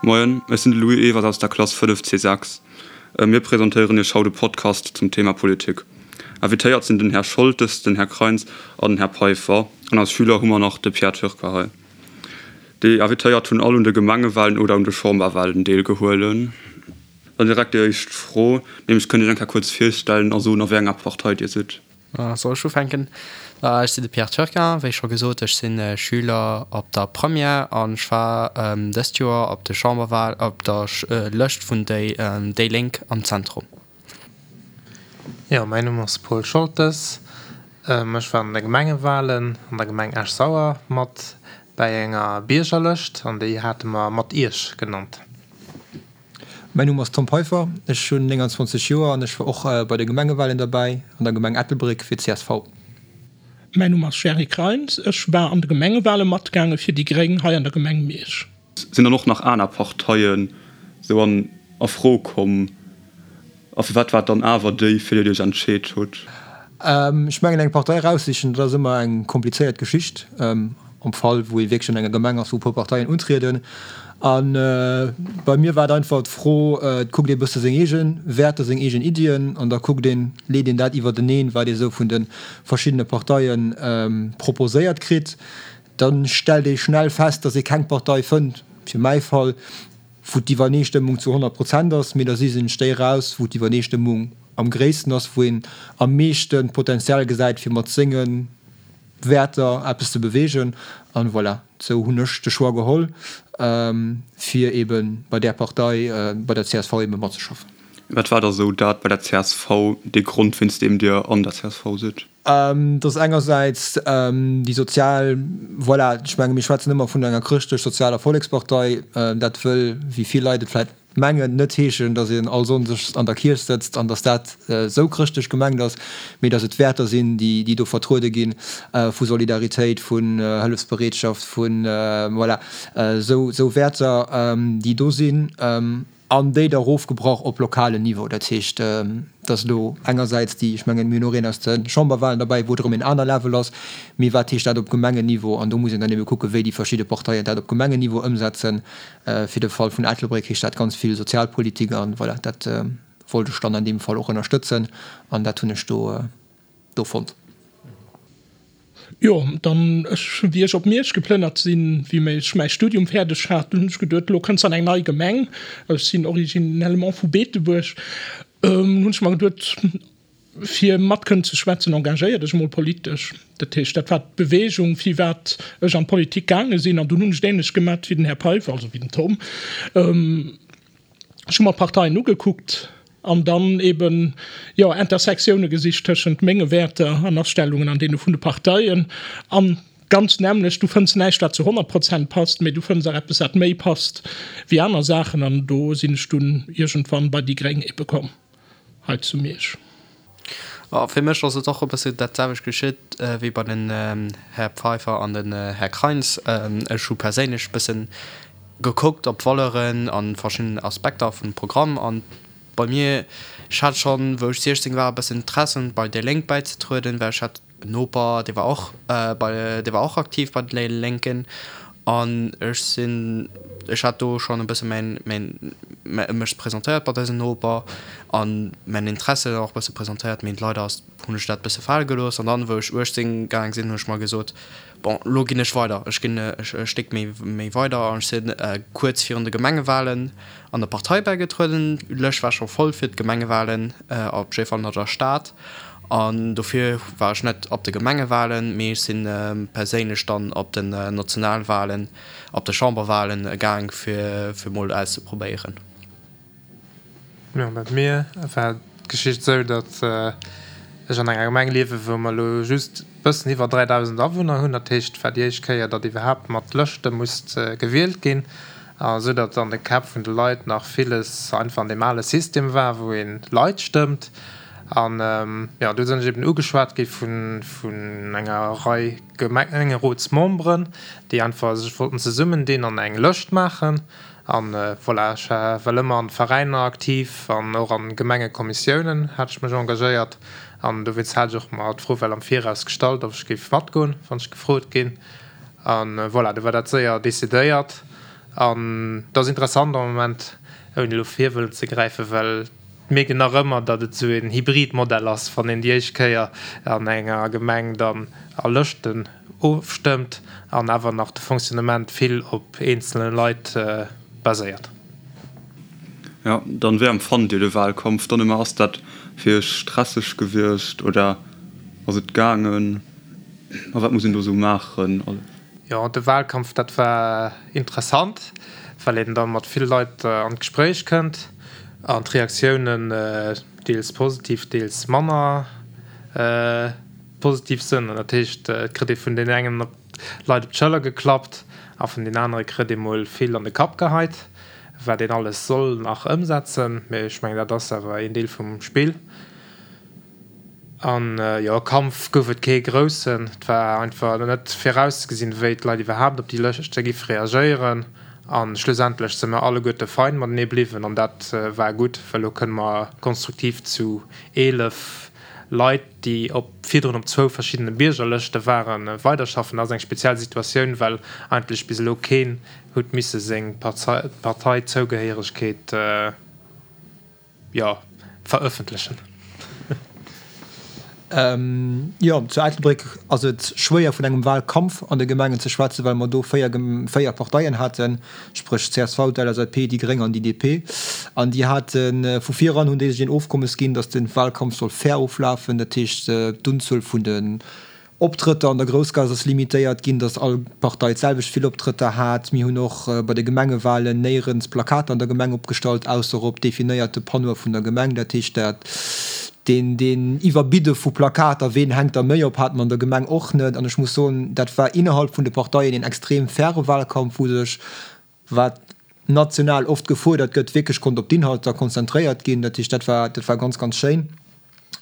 Moien, ech sinn de Louis Ewers aus der Klass 5 C6. Mir presentéieren Iech haut e Podcast zum Thema Politik. Invitéiert sinn den Här Scholtes, den Här Kreins an den Här Peiffer. An als Schüler hu mer nach de Pierre Türker hei. Déi Invitéiert hunn all un de Gemengewalen oder un de Chamberwalen deelgehuelen. Dann direkt déi éischt Fro, nämlech kënnt Iech eng Kéier kuerz virstellen a soen a wéi enger Partei Dir sidd? Soll ech ufänken? Ech sinn de Pierre Turquin, wéi scho gesot, ech si Schüler op der Première an ech war dëst Joer op de Chamberwal op der Lëscht vun déi Lénk am Zentrum. Jo, mäin Numm ass Paul Scholtes. Ech war an de Gemengewalen an der Gemeng Esch-Sauer mat bäi enger Biergerlëscht an déi hate mer Mat Iech genannt. Mäin Numm ass Tom Peiffer, ech hunn 29 Joer an ech war och bei de Gemengewalen derbäi an der Gemeng Ettelbréck fir csv. Mäin Numm ass Jerry Kreins, ech war an de Gemengewale matgaange fir déi gréng hei an der Gemeng Miersch. Sinn dann och nach aner Parteien sou an a Fro komm? A firwat war et dann awer déi, fir déi Dir Iech entscheet hutt? Ech mengen, eng Partei eraussichen, dat ass ëmmer eng komplizéiert Geschicht. Am Fall, wou ee wierklech an enger Gemeng ass, wou e puer Parteien untrieden. A bei mir war et einfach d'Fro, et kuckt ee bësse seng eege Wäerter, seng eegen Iddien an da kuckt een, leet een dat iwwerteneen, wat ee sou vun de verschiddene Parteie proposéiert kritt. Da stellt ee schnell fest, datt ee keng Partei fënnt, fir mäi Fall, wou d'Iwwerneestëmmung zu 100 Prozent ass, mee da sichen ech déi eraus, wou d'Iwwerneestëmmung am gréissten ass, wou een am meeschte Potenzial gesäit, fir mat senge Wäerter eppes ze beweegen. An voilà, sou hunn ech de Choix geholl, fir eebe bei där Partei, bei der csv eebe matzeschaffen. Wat war da sou dat bei der csv, dee Grond, wéinst deem Dir an der csv sidd? Et ass engersäits déi sozial, voilà, ech menge mir schwätzen ëmmer vun enger chrëschtlech-sozialer Vollekspartei. Dat wëll, wéi vill Leit et vläicht mengen, net heeschen, datt een all Sonndes an der Kierch sëtzt an datt dat esou chrëschtlech gemengt ass, mee datt et Wäerter sinn, déi do vertruede ginn, vu Solidaritéit, vun Hëllefsbereetschaft, vun, voilà, esou Wäerter, déi do sinn. An déi da erofgebrach op lokalen Niveau. Dat heescht, dass elo engersäits déi, ech mengen, mir hunn och een aus de Chamberwahlen derbäi, wou et erëm en aner Level ass, mee wat heescht dat op Gemengenniveau? An do muss een dann ebe kucken, wéi déi verschidde Parteien dat op Gemengenniveau ëmsetzen. Fir de Fall vun Ettelbréck heescht dat ganz vill Sozialpolitik an voilà, dat wollt ech dann an deem Fall och ënnerstëtzen an dat hunn ech do do fonnt. Jo, dann ech, wéi ech op Miersch geplënnert sinn, wéi ech mäi Studium fäerdeg hat, dunn hunn ech geduet, elo kënns an eng nei Gemeng, ech sinn originellement vu Beetebuerg, hunn ech mer geduet, fir mat kënnen ze schwätzen, engagéier dech emol politesch. Dat heescht, dat war d'Beweegung, firwat ech an d'Politik gaange sinn. An dunn hunn ech et änlech gemat wéi den Här Peiffer, also wéi den Tom. Ech hu mer d'Parteien ugekuckt an dann eben, jo, Intersektioune gesicht tëschent menge Wäerter an Astellungen an deene vun de Parteien. An ganz nämmlecht, du fënns näischt, wat zu 100 Prozent passt, mee du fënns och eppes, wat méi passt wéi aner Saachen. An do sinn ech dunn iergendwann bei déi gréng ebe komm hei zu Miersch. A fir mech ass et och e bësse dat selwecht geschitt wéi bei den Här Pfeiffer an den Här Kreins. Ech hu perséinlech e bësse gekuckt op d'Valeuren a verschidden Aspekter vum Programm. An bei mir, ech hat schonn, wou ech 16 war, e bëssen Interesse bei déi Lénk bäizetrueden, well ech hat En Noper, dee war och bei, dee war och aktiv bei de Lénken an ech sinn, ech hat do schonn e bësse mäin, mäin, mech presentéiert bei dësem Noper an mäin Interesse och e bësse presentéiert, mee leider ass, hunn ech dat e bësse fale gelooss an dann, wou ech 18 gaang sinn, hunn ech mer gesot, bon, lo ginn ech weider, ech ginn e Stéck méi, méi weider an ech sinn kuerz virun de Gemengewalen an der Partei bäigetrueden. D'Lëscht war scho voll fir d'Gemengewalen, op jidde Fall an der Stad. An dofir war ech net op de Gemengewalen, mee ech si perséinlech dann op den Nationalwalen, op de Chamberwalen gaang, fir mol auszeprobéieren. Jo, bei mir war d'Geschicht esou, datt ech an enger Gemeng liewen, wou mer elo just e bëssen iwwer 3.000 Awunner hunn. Dat heescht, et war déi éischt Kéier, datt iwwerhaapt mat Lëschte musst gewielt ginn, esou datt an de Käpp vun de Leit nach villes einfach an deem ale System war, wou ee Leit stëmmt. An jo, do sinn ech eben ugeschwat gi vun enger Rei Gemengerotsmemberen, déi einfach sech wollten zesummendinn an eng Lëscht maachen. An voilà, ech war well ëmmer an Veräiner aktiv an och an Gemengekommissiounen hat ech mech engagéiert. An dowéinst hat ech och mer d'Fro well am Viraus gestallt, ob ech géif matgoen, wann ech gefrot ginn. An voilà, du war dat séier decidéiert. An et ass interessant am Moment, ouni elo vir wëllen ze gräifen, well et mierkt een nach ëmmer, datt et esou een Hybridmodell ass, wann een déi éischt Kéier an enger Gemeng dann a Lëschten ofstëmmt an awer nach de Fonctionnement vill op eenzele Leit baséiert. Jo, dann wéi empfannt Dir de Wahlkampf dann ëmmer? Ass dat fir Iech stresseg gewiescht oder ass et gaangen? A wat muss een do sou maachen? Jo, de Wahlkampf, dat war interessant, well een da mat vill Leit an d'Gespréich kënnt an d'Reaktiounen deels positiv, deels manner positiv sënn. An dat heescht, et kritt ee vun deenen engen Leit op d'Schëller geklappt a vun deenen anere kritt ee mol vill an de Kapp geheit, wat een alles soll nach ëmsetzen. Mee ech mengen, dat ass awer een Deel vum Spill. An jo, Kampf gouf et kee groussen. Et war einfach net virauszegesinn, wéi d'Leit iwwerhaapt op déi Lëschte géife reagéieren. A schlussendlech si mer alleguerte fein matenee bliwwen an dat war gutt, well elo kënne mer konstruktiv zu 11 Leit, déi op virdrun op zwou verschiddene Biergerlëschte waren, weiderschaffen. Dat ass eng speziell Situatioun, well eigentlech bis elo keen huet misse seng Parteizougehéieregkeet, jo, verëffentlechen. Jo, zu Ettelbréck ass et schwéier vun engem Wahlkampf an de Gemengen ze schwätzen, well mer do 4 Parteien haten, spréch csv, d'LSAP, déi Gréng an déi DP. An déi hate vu vir eran hunn déi sech een Ofkommes ginn, datt de Wahlkampf soll fair oflafen, dat heescht d'Unzuel vun de Optrëtter an der Groussgaass ass limitéiert ginn, datt all Partei d'selwecht vill Optrëtter hat. Mir hunn och bei de Gemengewalen néierens Plakater an der Gemeng opgestallt, ausser op definéierte Panneaue vun der Gemeng. Dat heescht, dat deen deen Iwwerbidde vu Plakater, ween hänkt der méi op, hate mer an der Gemeng och net. An ech muss soen, dat war innerhalb vun de Parteien een extrem faire Wahlkampf, wou sech, wat national oft gefuerdert gëtt, wierklech konnt op d'Inhalter konzentréiert ginn. Dat heescht, dat war, dat war ganz, ganz schéin,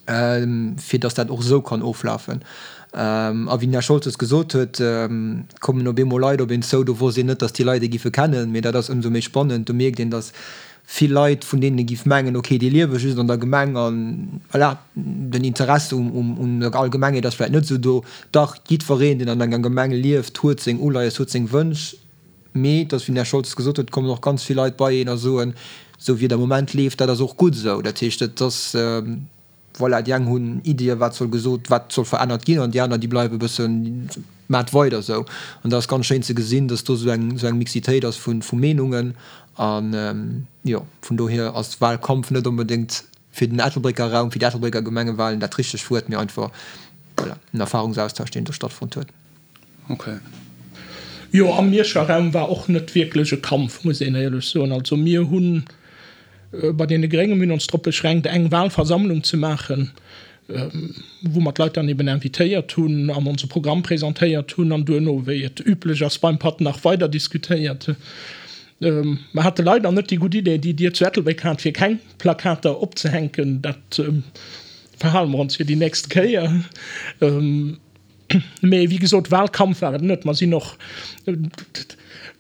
fir datt dat och esou kann oflafen. A wéi den Här Scholtes gesot huet, kommen op eemol Leit op een zou, do wosst een net, datt déi Leit ee giffe kennen, mee dat ass ëmsou méi spannend. Do mierkt een, datt vill Leit, vun deenen ee giff mengen, okay, déi liewe just an der Gemeng a voilà, den Interesse un der Allgemengheet ass vläicht net esou do. Dach, jiddwereen, deen an enger Gemeng lieft, huet seng Uleies, huet seng Wënsch. Mee et ass, wéi den Här Scholtes gesot huet, kommen och ganz vill Leit bei een a soen, esou wéi et am Moment leeft, dat ass och gutt esou. Dat heescht, et ass, voilà, déi eng hunn Iddien, wat soll gesot, wat soll verännert ginn, an déi aner, déi bleiwe e bëssen, maacht weider esou. An dat ass ganz schéin ze gesinn, dass do esou eng, esou eng Mixitéit ass vu, vu Meenungen. An, jo, vun dohier ass Wahlkampf net onbedéngt fir den Ettelbrécker Raum, fir déi Ettelbrécker Gemengewahlen dat richtegt Wuert, mee einfach, voilà, en Erfahrungsaustausch, deen do stattfonnt huet. Ok. Jo, am Mierscher Raum war och net wierklech e Kampf, muss een éierlech soen. Also mir hu bei deene Gréngen, mir hunn ons drop beschränkt, eng Wahlversammlung ze maachen, wou mer d'Leit dann eben invitéiert hunn an onse Programm presentéiert hunn an duerno, wéi et üblech ass beim Patt, nach weider diskutéiert. Mer hate leider net déi gutt Idee, déi Dir zu Ettelbréck hat, fir keng Plakater opzehänken. Dat verhale mer ons fir déi nächst Kéier. Mee wéi gesot, Wahlkampf war et net. Mer sinn och,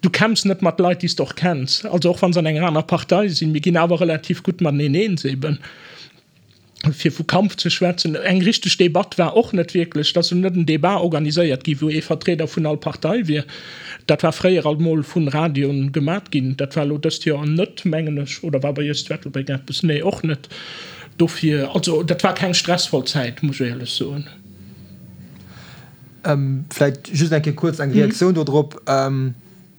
du kämpfs net mat Leit, déi s de och kenns. Also och wa se an enger aner Partei sinn, mir ginn awer relativ gutt mateneen eens eben. Fir vu Kampf ze schwätzen, eng richteg Debatt war och net wierklech. Et ass jo net en Debat organiséiert gi wou ee Vertrieder vun all Partei wier. Dat war fréier alt mol vun Radioen gemat ginn. Dat war elo dëst Joer net, mengen ech. Oder war bei iech zu Ettelbréck eppes? Nee, och net. Dofir, also dat war keng stressvoll Zäit, muss ech éierlech soen. Vläicht just eng Kéier kuerz eng Reaktioun do drop.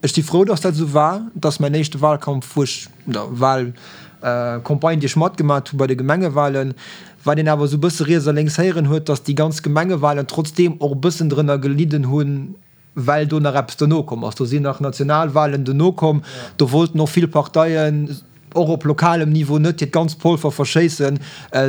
Ech si frou, dass dat esou war. Et ass mäin éischte Wahlkampf, wou ech, oder Wahlcampagne, déi ech matgemaat hu bei de Gemengewahlen. Wat een awer esou e bësse riets a lénks héieren huet, dass déi ganz Gemengewahlen trotzdeem och e bëssen drënner gelidden hunn, well do nach eppes dono komm ass. Do sinn nach Nationalwahlen dono komm. Do wollten och vill Parteien och op lokalem Niveau net hiert ganzt Polver verschéissen,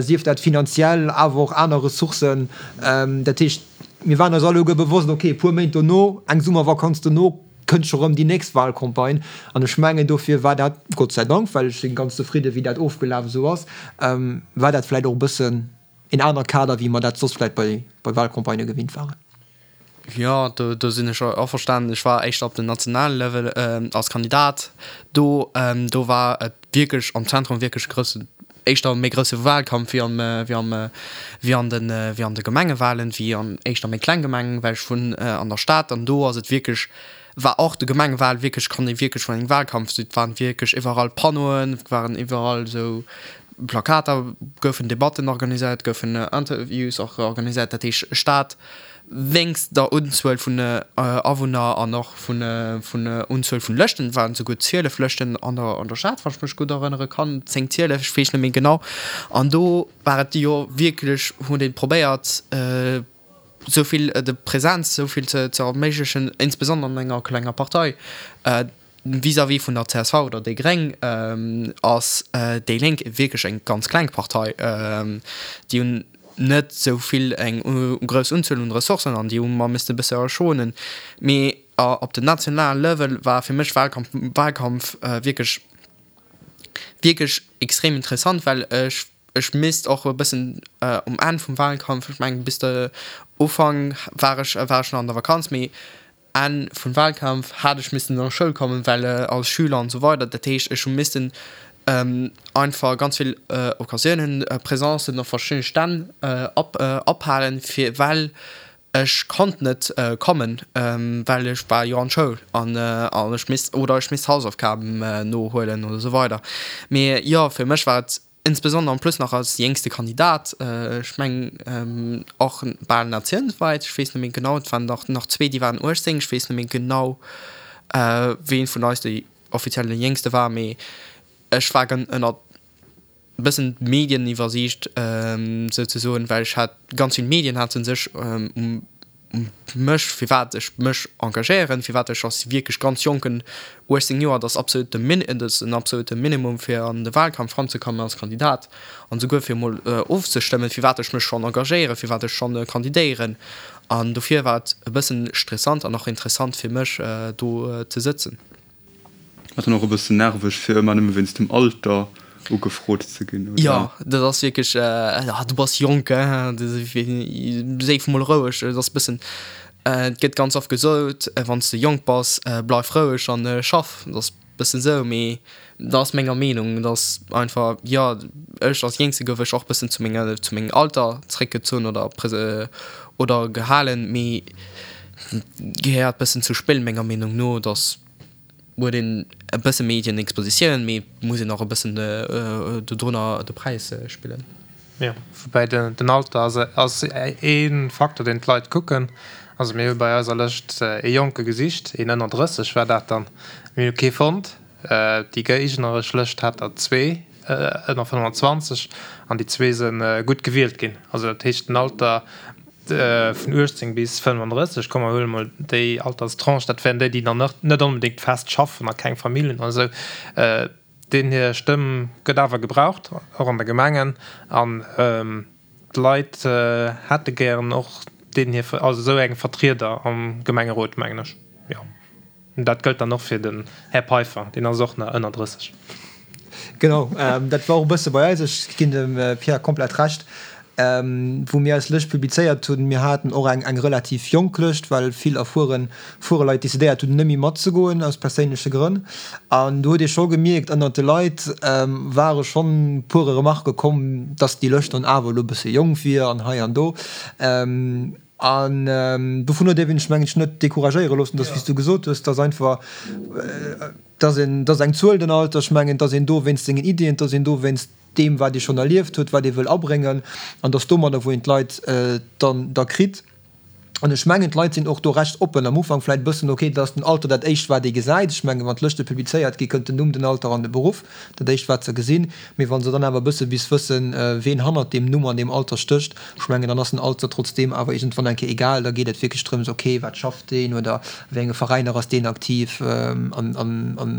sief dat finanziell, awer och aner Ressourcen. Dat heescht, mir waren eis alleguer bewosst, okay, e puer Méint dono, eng Summervakanz dono, kënnt scho rëm déi nächst Wahlcampagne. An ech mengen, dofir war dat, Gott sei Dank, well ech si ganz zefridde wéi dat ofgelaf esou ass, war dat vläicht och e bëssen een anere Kader, wéi mer dat soss vläicht bei Wahlcampagnë gewinnt waren. Jo, do do sinn ech averstanen. Ech war éischter op dem nationale Level als Kandidat do. Do war et wierklech am Zentrum wierklech e groussen, éischter méi grousse Wahlkampf wéi am wéi am wéi an de wéi an de Gemengewahlen, wéi an éischter méi kleng Gemengen, well ech wunn an der Stad an do ass et wierklech. War och de Gemengewal wierklech, kann ee wierklech vun engem Walkampf, et waren wierklech iwwerall Panneauen, et waren iwwerall esou Plakater, goufen Debatten organiséiert, goufen Interviews och organiséiert. Dat heescht Stad wéinst der Unzuel vun Awunner an och vun vun Unzuel vun Lëschten, et waren esouguer 12 Lëschten an der an der Stad, wann ech mech gutt erënnere kann, 10, 12, ech weess net méi genau. An do war et jo wierklech, huet ee probéiert, esou vill de Präsenz esou vill ze ze erméiglechen, insbesondere an enger klenger Partei. Vis-à-vis vun der csv oder déi Gréng ass déi Lénk wierklech eng ganz kleng Partei. Déi hunn net esou vill eng grouss Unzuel un Ressourcen an déi hu mer misste e bësse schonen. Mee op den nationalen Level war fir mech Wahlkampf Wahlkampf wierklech wierklech extrem interessant, well ech ech misst och e bëssen um Enn vum Wahlkampf, ech mengen bis de Ufank war ech war ech nach an der Vakanz, mee Enn vum Wahlkampf hat ech missten an Schoul kommen, well als Schüler an esou weider. Dat heescht ech hu missten einfach ganz vill Occasiounen, Presencen op verschiddene Stänn ophalen, fir well ech konnt net kommen, well ech war jo an Schoul an ech misst oder ech misst Hausaufgaben nohuelen oder esou weider. Mee jo, fir mech war et Insbesondere en plus nach als jéngste Kandidat, ech mengen och bal natiounswäit, ech weess net méi genau, et waren nach nach zwee, déi waren 18, ech weess net méi genau, ween vun eis déi offiziell dee Jéngste war, mee ech war ënnert e bëssen d'Medieniwwersiicht souzesoen, well ech hat ganz vill Medien hate sech um mech, firwat ech mech engagéieren, firwat ech als wierklech ganz Jonken, 18 Joer, dat ass absolut de Min, dat ass en absolute Minimum fir an de Wahlkampf eranzekommen als Kandidat an esouguer fir emol ofzestëmmen, firwat ech mech schonn engagéieren, firwat ech schonn kandidéieren. An dofir war et e bëssen stressant an och interessant fir mech do ze sëtzen. Ass dann och e bëssen nerveg fir ëmmer nëmme wéinst dem Alter ugefrot ze ginn, oder? Jo, dat ass wierklech, ah du bass jonk, hein, séif mol roueg. Et ass e bëssen, et gëtt ganz oft gesot, wann s de jonk bass, bleif roueg an schaff. Dat ass e bëssen esou, mee dat ass menger Meenung, dat ass einfach, jo, ech als Jéngste gouf ech och e bëssen zu menger, zu mengem Alter zréckgezunn oder oder gehalen, mee Gehéiert bëssen zu Spill menger Meenung no, dass huet een e bësse Medienexpositioun, mee muss een och e bëssen dodrunner de Präis spillen. Jo, woubäi den Alter ass ass ee Faktor deen d'Leit kucken. Also mir hu bei eiser Lëscht ee Jonke gesicht, een ënner 30 war dat dann, mir hu kee fonnt. Déi géigneresch Lëscht hat der zwee ënner 25 an déi zwee se gutt gewielt ginn. Also dat heescht den Alter Vun 18 bis 35, komm mer huele mol déi Alterstranche, dat wären déi, déi nach net onbedéngt fest schaffen a keng Famill hunn oder esou, deenen hir Stëmm gëtt awer gebraucht, och an de Gemengen. An d'Leit hätte gären och deenen hir, also esou eng Vertrieder am Gemengerot, mengen ech, jo. Dat gëllt dann och fir den Här Peiffer, deen ass och nach ënner 30. Genau, dat war och e bësse bei eis. Ech ginn dem Pierre komplett Recht. Wou mir eis Lëscht publizéiert hunn, mir haten och eng eng relativ jonk Lëscht, well vill erfueren fuere Leit decidéiert hunn, net méi matzegoen aus perséinleche Grënn. An do huet ee scho gemierkt, ënnert de Leit ware schonn puere Remarquë komm, dass déi Lëscht dann awer elo e bësse jonk wier an hei an do. An dovun huet ee sech, mengen ech, net decouragéiere loossen, dass, wéi s du gesot hues, dass einfach, dass een, dass eng Zuel den Alter, ech mengen, dass een do wéinst sengen Iddien, dass een do wéinst deem, wat ee schonn erlieft huet, wat ee wëll abréngen, an dass domadder, wou een d'Leit dann da kritt. An ech mengen, d'Leit sinn och do recht oppen. Am Ufank vläicht e bëssen, okay, dat ass den Alter dat éischt, wat ee gesäit. Ech mengen, wann d'Lëschte publizéiert gi, kënnt den Numm, den Alter an de Beruff, dat éischt, wat se gesinn. Mee wa se dann awer e bësse bis wëssen, ween hannert deem Numm an deem Alter stécht, Ech mengen, dann ass den Alter trotzdeem awer iergendwann eng Kéier egal. Da geet et wierklech drëms, okay, wat schafft deen oder a wéi enge Veräiner ass deen aktiv an, an, an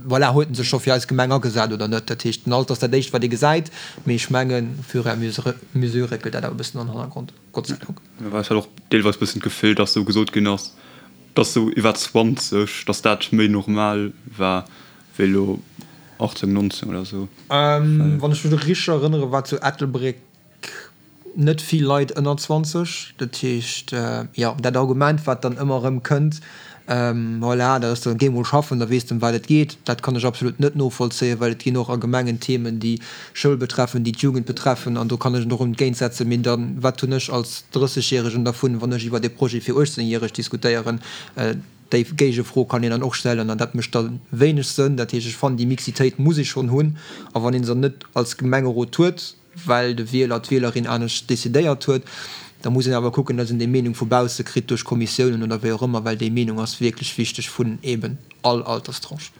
voilà, huet en sech scho fir eis Gemeng agesat oder net. Dat heescht, den Alter ass dat Éischt, wat ee gesäit, mee ech mengen, au fur et à mesure réckelt dat awer e bëssen an den Hannergrond, Gott sei Dank. Well ech hat och deelweis e bëssen d'Gefill, dass esou gesot ginn ass, dass esou iwwer 20, dass dat méi normal war wéi elo 18, 19 oder esou. Wann ech mech richteg erënnere war zu Ettelbréck net vill Leit ënner 20. Dat heescht, jo, dat Argument, wat dann ëmmer erëm kënnt, voilà, dat ass dann, géi mol schaffen, da weess de, ëm wat et geet, dat kann ech absolut net novollzéien, well et ginn och a Gemengen Themen, déi Schoul betreffen, déi d'Jugend betreffen, an do kann ech et och entgéintsetzen. Mee dann, wat hunn ech als Drëssegjäregen dervun, wann ech iwwert e Projet fir Uechtzéngjäreg diskutéieren? Déi Géigefro kann een dann och stellen an dat mécht da wéineg Sënn. Dat heescht, ech fannen, déi Mixitéit muss ee schonn hunn. A wann ee se net als Gemengerot huet, well de Wieler, d'Wielerin anescht decidéiert huet, da muss een awer kucken, datt een déi Meenung vu bausse kritt duerch Kommissiounen oder wéi och ëmmer, well déi Meenung ass wierklech wichteg vun eeben all Alterstranche.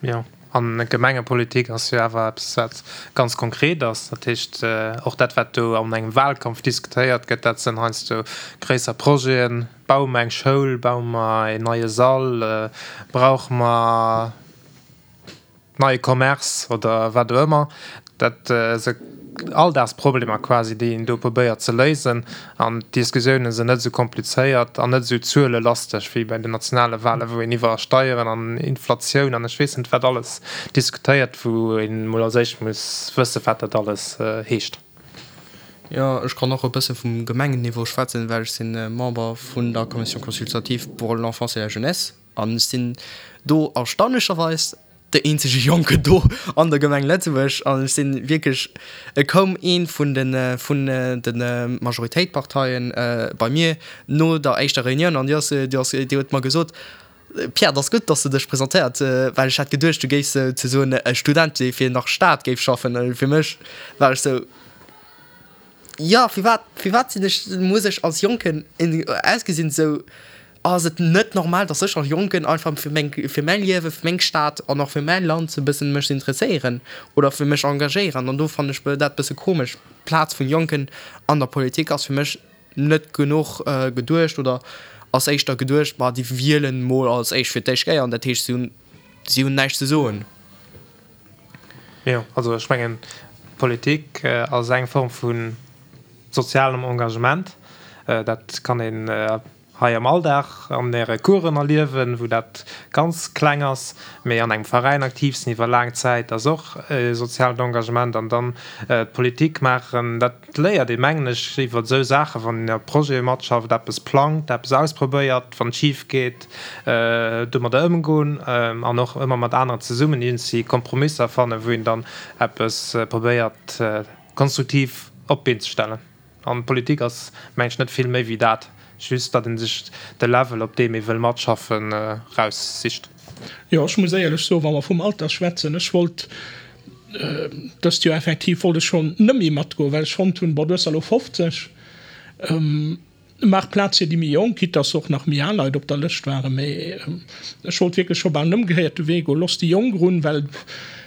Jo, an Gemengepolitik ass jo awer eppes, wat ganz konkret ass. Dat heescht, och dat, wat do an engem Wahlkampf diskutéiert gëtt, dat sinn heiansdo gréisser Projeten. Baue mer eng Schoul? Baue mer een neie Sall? Brauche mer neie Commerce oder wat och ëmmer? Dat si Alldagsproblemer quasi, déi een do probéiert ze léisen. An d'Diskussiounen sinn net esou komplizéiert an net esou zuelelasteg wéi bei den nationale Wahlen, wou een iwwer Steieren an Inflatioun an ech weess net wat alles diskutéiert, wou een emol als éischt muss wëssen, wat dat alles heescht. Jo, ech kann och e bësse vum Gemengenniveau schwätzen, well ech si Member vun der Commission consultative pour l'enfance et la jeunesse an ech sinn do erstaunlecherweis de eenzege Jonken do an der Gemeng Lëtzebuerg an ech sinn wierklech, et koum ee vun de vun de Majoritéitparteien bei mir no der éischter Reunioun an déi ass déi ass déi huet mer gesot, Pierre, et ass gutt, dass de dech presentéiert, well ech hat geduecht, du géifs souzesoen e Student dee fir nach Staat géif schaffen. Fir mech war ech sou, Jo, firwat, firwat sinn ech, muss ech als Jonken ausgesinn esou? Ass et net normal, dass ech als Jonken einfach fir meng, fir mäi Liewen, fir meng Stad an och fir mäi Land e bëssen mech interesséieren oder fir mech engagéieren? An do fannen ech dat bësse komesch. D'Plaz vun Jonken an der Politik ass fir mech net genuch geduecht oder ass éischter geduecht, ma déi wielen mol als éischt fir d'éischt Kéier an dat heescht si hunn, si hunn näischt ze soen. Jo, also ech mengen, Politik ass eng Form vu sozialem Engagement. Dat kann een hei am Alldag an Äre Coursen erliewen, wou dat ganz kleng ass, mee an engem Veräin aktiv sinn iwwer laang Zäit ass och e soziaalt Engagement. An dann d'Politik maachen, dat léiert ee mengen ech iwwer esou Saachen, wann een a Projete matschafft, eppes plangt, eppes ausprobéiert, wann et schif geet, domadder ëmgoen an och ëmmer mat aneren zesummen iergendwéi Kompromisser fannen, wou een dann eppes probéiert konstruktiv op d'Been ze stellen. An Politik ass, mengen ech, net vill méi wéi dat, just datt ee sech de Level, op deem ee wëll matschaffen, eraussicht. Jo, ech muss éierlech soen, wa mer vum Alter schwätzen, ech wollt dëst Joer effektiv wollt ech schonn net méi matgoen, well ech fonnt hunn, bon, du hues der elo 50, Maach Plaz fir déi méi Jonk, quitte dass och nach méi al Leit op der Lëscht waren, mee ech wollt wierklech scho bal den ëmgekéierte Wee goen, Looss déi Jonk erun, well,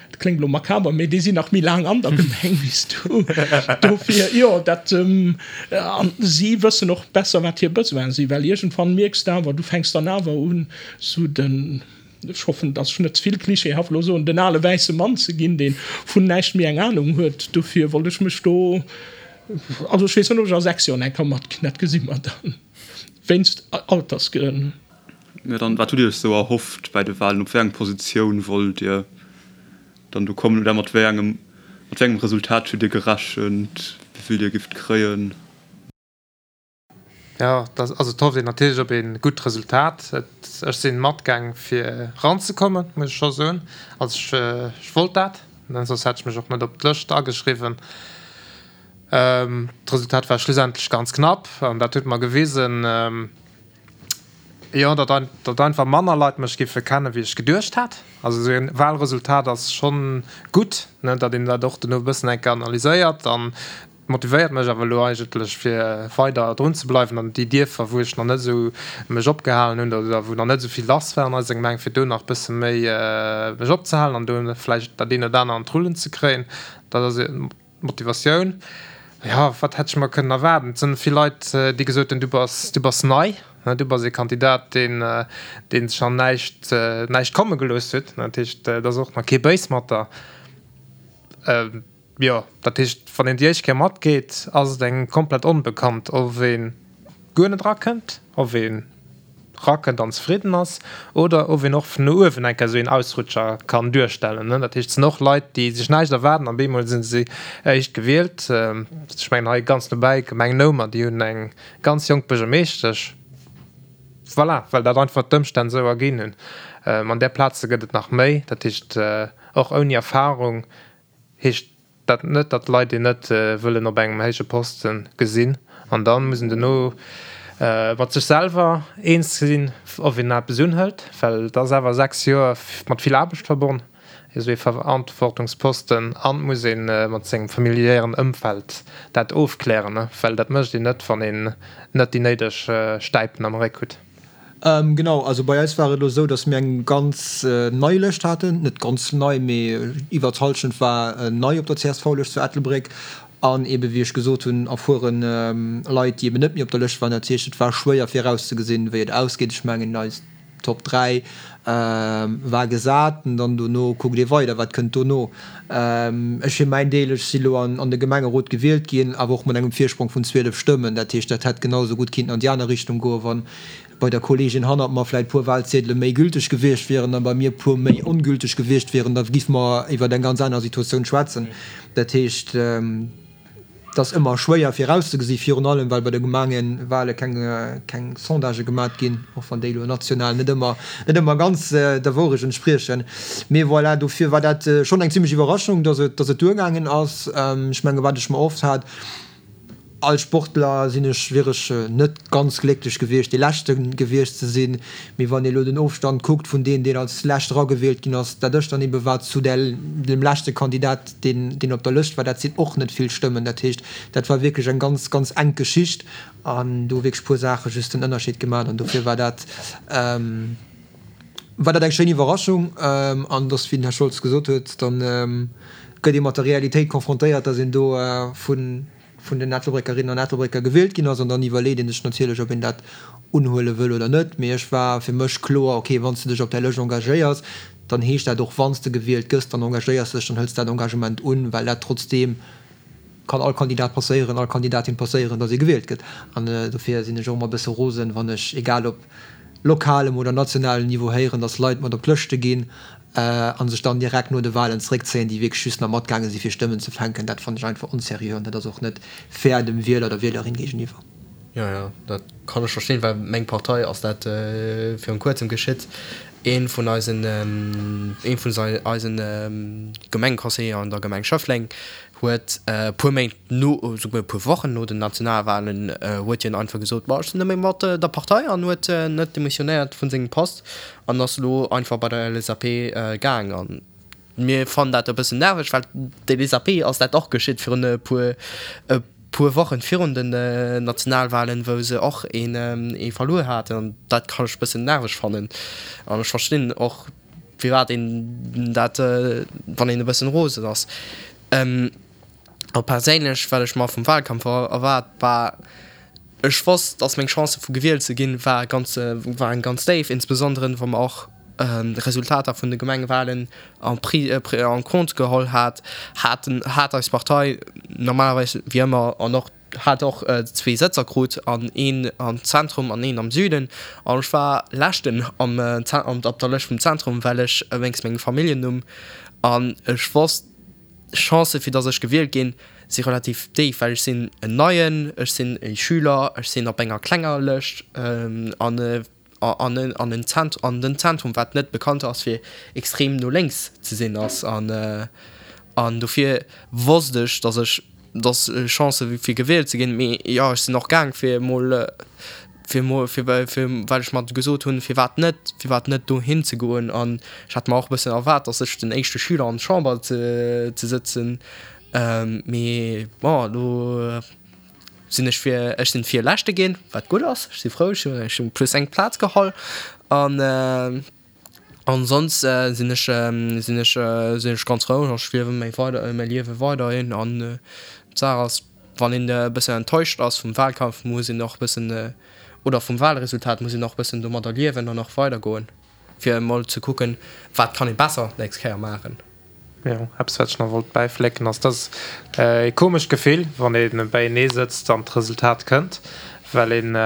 dat kléngt elo makaber, mee déi sinn nach méi laang an der Gemeng wéi s du. Dofir, jo, dat, an si wëssen och besser, wat hir Besoine sinn, well iergendwann mierks de awer, du fänks dann awer un, sou den, ech hoffen, dass ech net ze vill klischeehaft elo soen, den ale wäisse Mann ze ginn, dee vun näischt méi eng Anung huet. Dofir wollt ech mech do Also ech weess net ob ech a 6 Joer nach eng Kéier matginn, dat gesi mer dann, wéinst Altersgrënn. Mä dann, wat hutt Dir Iech esou erhofft bei de Wahlen? Op wéi eng Positioun wollt Dir dann do kommen oder mat wéi engem, mat wéi engem Resultat hutt Dir gerechent, wéi vill Dir gifft kréien? Jo, dat, also et hofft een natierlech op ee gutt Resultat. Et, ech sinn matgaang fir eranzekommen, muss ech scho soen. Also ech, ech wollt dat, soss hätt ech mech och net op d'Lëscht ageschriwwen. D'Resultat war schlussendlech ganz knapp an dat huet mer gewisen, jo, datt, datt einfach manner Leit mech giffe kennen, wéi ech geduecht hat. Also esou e Wahlresultat ass schonn gutt, ne, datt een dat och duerno e bëssen eng Kéier analyséiert an Motivéiert mech awer elo eigentlech fir weider drun ze bleiwen an déi Dierfer wou ech nach net esou mech opgehalen hunn oder wou nach net esou vill lass war an eiser Gemeng fir do nach bësse méi mech opzehalen an do vläicht dat een oder aner an d'Rullen ze kréien. Dat ass d'Motivatioun. Jo, wat hätt ech mer kënnen erwaarden? Et sinn vill Leit déi gesot hunn, du bass, du bass nei, du bass ee Kandidat deen deen sech an näischt näischt komme gelooss huet. Dat heescht et ass och nach kee béis mat der. Jo, dat heescht, wann een déi éischt Kéier matgeet, ass et engem komplett onbekannt, ob ee guer net erakënnt, ob een erakënnt an zefridden ass oder ob een och vun no uewen eng Kéier esou een Ausrutscher kann duerstellen. Dat heescht, et sinn och Leit, déi sech näischt erwaarden an bemol si se éischt gewielt. Ech mengen hei ganz nobäi, Gemeng Noumer, déi hunn eng ganz jonk Buergermeeschtesch. Voilà, well dat einfach d'Ëmstänn esou erginn hunn. An där Plaze gëtt et nach méi. Dat heescht, och ouni Erfarung heescht dat net, datt d'Leit een net wëllen op engem héije Poste gesinn. An da muss een duerno. mat sech selwer eens ze sinn, ob een eppes unhëlt, well et ass awer 6 Joer mat vill Aarbecht verbonn, esou ee Verantwortungsposten, an et muss ee mat sengem familiären Ëmfeld dat ofklären, well dat mécht een net, wann een net déi néideg Stäipen am Réck hutt. Genau, also bei eis war et elo esou, datt mir eng ganz nei Lëscht haten, net ganz nei, mee iwwer d'Hallschent war nei op der CSV-Lëscht zu Ettelbréck an eebe wéi ech gesot hunn, erfuere Leit, déi eeben net méi op der Lëscht waren. Dat heescht, et war schwéier virauszegesinn, wéi et ausgeet. Ech mengen, eis Top 3 war gesat an dann dono kuckt ee weider, wat kënnt dono. Ech fir mäin Deel, ech si lo an de Gemengerot gewielt ginn, awer och mat engem Virsprong vun 12 Stëmmen. Dat heescht, dat hätt genau esou gutt kinnten an déi aner Richtung goen, wa bei der Kolleegin hannert mer vläicht puer Wahlziedele méi gülteg gewiescht wieren a bei mir puer méi ongülteg gewiescht wieren, da giffe mer iwwer eng ganz aner Situatioun schwätzen. Dat heescht. Et ass ëmmer schwéier virauszegesi, virun allem well bei de Gemengewahle keng Sondagë gemat ginn, och wann déi elo national net ëmmer net ëmmer ganz der Wourecht entspriechen. Mee voilà, dofir war dat schonn eng zimmlech Iwwerraschung, datt et datt et duergaangen ass. Ech menge wat ech mer erhofft hat, als Sportler sinn ech wier ech net ganz glécklech gewiescht, dee Leschte gewiescht ze sinn. Mee wann ee elo den Ofstand kuckt vun deem, deen als Lescht eragewielt ginn ass, dat ech dann ebe war, zu dem leschte Kandidat, deen deen op der Lëscht war, dat sinn och net vill Stëmmen. Dat heescht, dat war wierklech eng ganz, ganz enk Geschicht an do hu wierklech puer Saache just den Ënnerscheed gemaach an dofir war dat war dat eng schéin Iwwerraschung. An dass, wéi den Här Scholz gesot huet, dann gëtt ee mat der Realitéit confrontéiert, dass een do vun vun den Ettelbréckerinnen an Ettelbrécker gewielt ginn ass an dann iwwerleet ee sech natierlech, ob een dat unhuele wëll oder net. Mee ech war fir mech kloer, okay, wann s de dech op där Lëscht engagéiers, dann heescht dat och, wann s de gewielt gëss, dann engagéiers de dech, dann hëls de dat Engagement un, well dat trotzdeem kann all Kandidat passéieren, all Kandidatin passéieren, datt ee gewielt gëtt. An dofir sinn ech och ëmmer e bësse rosen, wann ech, egal op lokalem oder nationalem Niveau, héieren, datt Leit mat op d'Lëschte ginn a sech dann direkt no de Wahlen zeréckzéien, déi wierklech just nach matgaange si fir Stëmmen ze fänken, dat fannen ech einfach onseriö an dat ass och net fair dem Wieler, der Wielerin géigeniwwer. Jo, jo, dat kann ech verstinn, well meng Partei ass dat virun kuerzem geschitt. Ee vun eisen, ee vun eisen Gemengeconseiller an der Gemeng Schëffleng huet e puer Méint no, esouguer e puer Wochen no den Nationalwahlen huet hien einfach gesot, ma ech sinn net méi mat der Partei an huet net demissionéiert vun sengem Post an ass elo einfach bei der LSAP gaang. An mir fannen dat e bëssen nerveg, well d'LSAP ass dat och geschitt virun e puer e puer Wochen virun den Nationalwahlen, wou se och een ee verluer haten. An dat kann ech e bëssen nerveg fannen an ech verstinn och, firwat een dat, wann een e bëssen rosen ass. A perséinlech, wat ech mer vum Wahlkampf erwaart, war, ech wosst, dass meng Chancë vu gewielt ze ginn, war ganz, waren ganz déif, insbesondere wa mer och d'Resultater vun de Gemengewahlen en pris, en compte geholl hat, haten, hat eis Partei normalerweis wéi ëmmer an och hat och zwee Sëtzer krut an een am Zentrum an een am Süden an ech war leschten am op der Lëscht vum Zentrum, well ech wéinst mengem Familljennumm an ech wosst d'Chancë fir datt ech gewielt ginn si relativ déif, well ech sinn en Neien, ech sinn e Schüler, ech sinn op enger klenger Lëscht an an an en Zent an den Zentrum, wat net bekannt ass fir extrem no lénks ze sinn ass an an dofir wosst ech, datt ech datt Chancë fir gewielt ze ginn, mee jo ech sinn och gaang fir emol fir emol fir fir well ech mer gesot hunn, firwat net firwat net dohin ze goen an ech hat mer och e bëssen erwaart, datt ech den éischte Schüler an d'Chamber ze ze sëtzen, mee bon elo. Sinn ech fir, ech sinn Virleschte ginn, wat gutt ass, ech si frou, ech hunn ech hunn plus eng Plaz geholl an an soss sinn ech sinn ech sinn ech ganz frou an ech liewe mäi weider mäi Liewe weiderhin an d'Saach ass, wann een e bëssen enttäuscht ass vum Wahlkampf, muss een och e bëssen oder vum Wahlresultat, muss een och e bëssen domadder liewen an och weidergoen, fir emol ze kucken, wat kann ee besser d'nächst Kéier maachen. Jo, eppes wat ech nach wollt bäiflécken ass, dass ee komescht Gefill wann ee beienee sëtzt an d'Resultat kënnt, well een,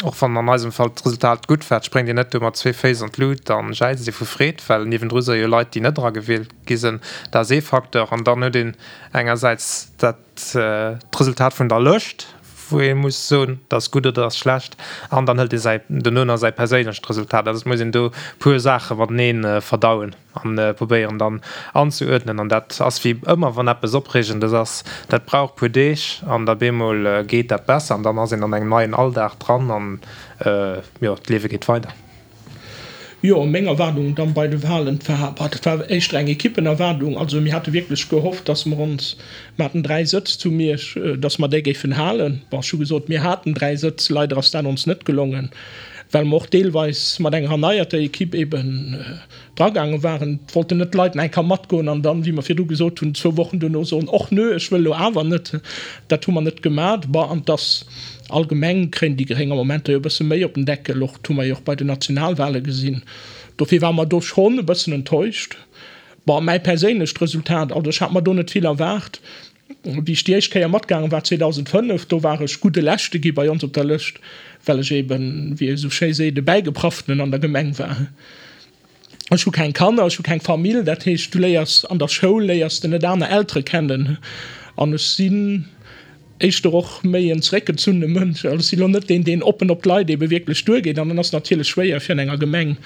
och wann an eisem Fall d'Resultat gutt war, spréngt een net do mat zwee Féiss an d'Lut an jäizt ee vu Freed, well niewendru si jo Leit déi net eragewielt gi sinn. Dat ass ee Facteur. An dann huet een engersäits dat d'Resultat vun der Lëscht. wou ee muss soen, dat ass gutt oder dat ass schlecht, an dann hëlt ee säi dono nach säi perséinlecht Resultat. Also et muss een do puer Saache matenee verdauen an probéieren dann anzeuerdnen. An dat ass wéi ëmmer, wann eppes Opreegendes ass, dat brauch puer Deeg an da bemol geet dat besser an dann ass een an engem neien Alldag dran an jo, d'Liewe geet weider. Jo, meng Erwaardung dann bei de Wahlen, war, bah, dat war éischter eng Equippenerwaardung. Also mir hate wierklech gehofft, dass mer ons, mer haten 3 Sëtz zu Miersch, dass mer déi géifen halen. Bon, ech hu gesot, mir haten 3 Sëtz, leider ass dat ons net gelongen, well mer och deelweis mat enger erneierter Equipe eben dragaange waren. Et wollten net d'Leit nach eng Kéier matgoen an dann, wéi mer virdu gesot hunn, zwou Wochen duerno soen, och nö, ech wëll elo awer net. Dat hu mer net gemat. Bon, an dass allgemeng kréien déi Gréng am Moment jo e bësse méi op den Deckel, och dat hu mer jo och bei den Nationalwale gesinn. Dofir ware mer do schonn e bëssen enttäuscht. Bon, mäi perséinlecht Resultat, also ech hat mer do net vill erwaart. Wéi ech déi éischt Kéier matgaange war, 2005, do war ech gudde Leschte gi bei ons op der Lëscht, well ech eben, wéi ee sou schéi seet, e Bäigepraftenen an der Gemeng war. Ech hu keng Kanner, ech hu keng Famill, dat heescht, du léiers an der Schoul léiers de net aner Eltere kennen. An ech sinn éischter och méi en zeréckgezunne Mënsch. Also ech sinn elo net deen, deen oppen op d'Leit ebe wierklech duergeet. An dann ass et natierlech schwéier, fir an enger Gemeng,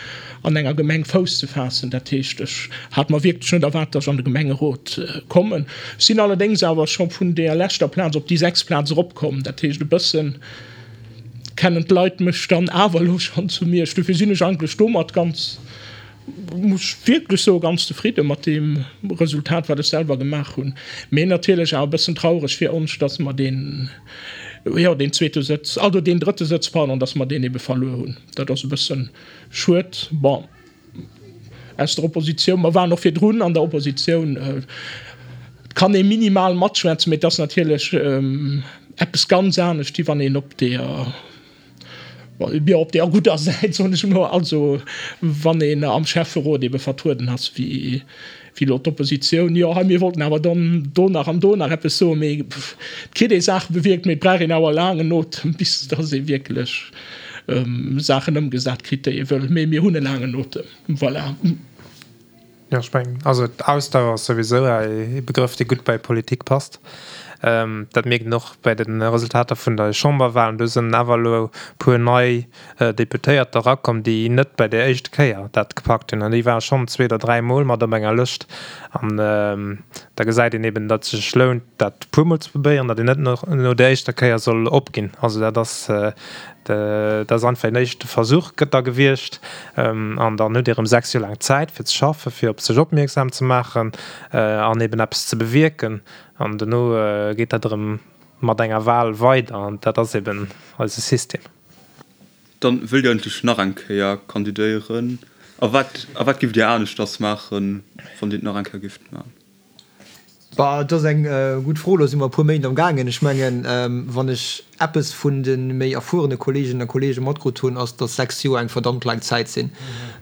an enger Gemeng Fouss ze faassen. Dat heescht, ech hat mer wierklech net erwaart, datt ech an de Gemengerot kommen. Ech sinn allerdéngs awer scho vun deeër leschter Plaz op déi sechst Plaz eropkomm. Dat heescht, e bësse kennen d'Leit mech dann awer elo schonn zu Miersch. Dofir sinn ech eigentlech domat ganz, muss ech wierklech soen, ganz zefridde mat deem Resultat, wat ech selwer gemaach hunn. Mee natierlech awer e bëssen traureg fir ons, dass mer deen, jo, deen zweete Sëtz, also deen drëtte Sëtz, pardon, dass mer deen ebe verluer hunn. Dat ass e bësse schued. Bon, aus der Oppositioun, mer waren och virdrun an der Oppositioun, et kann ee minimal matschwätzen, mee et ass natierlech eppes ganz anescht, wéi wann een op deeër, Jo, op der gudder Säit, soen ech emol. Also, wann een am Schäfferot ebe vertrueden ass, wéi elo d'Oppositioun, jo, hei, mir wollten awer dann do nach an do nach eppes soen, mee et kritt ee Saache bewierkt, mee et brauch een awer laangen Otem, bis datt ee wierklech Saachen ëmgesat kritt, déi ee wëll. Mee mir hunn e laangen Otem, voilà. Jo, ech mengen, also d'Ausdauer ass souwisou e Begrëff, dee gutt bei Politik passt. Dat mierkt een och bei de Resultater vun de Chamberwahlen. Do sinn awer elo e puer nei Deputéiert erakomm, déi net bei der éischte Kéier dat gepackt hunn. An déi ware schonn zwee oder dräi Mol mat op enger Lëscht. An da gesäit een eben, datt et sech lount, dat e puermol ze probéieren, datt een net no der éischter Kéier soll opginn. Also dat ass Dat ass einfach een éischte Versuch gëtt da gewiescht. An dann hutt Dir erëm 6 Joer laang Zäit fir ze schaffen, fir op sech opmierksam ze maachen an eben eppes ze bewierken. An dono geet dat erëm mat enger Wal weider. An dat ass eben eise System. Dann wëllt Dir eigentlech nach eng Kéier kandidéieren? A wat, a wat giff Dir aneschters maachen, wann Dir et nach eng Kéier gifft maachen? Bah, et ass eng gutt Fro. Elo si mer e puer Méint am gaangen. Ech mengen, wann ech eppes vun de méi erfuerene Kolleeginnen a Kolleege matkrut hunn, ass, datt 6 Joer eng verdammt laang Zäit sinn.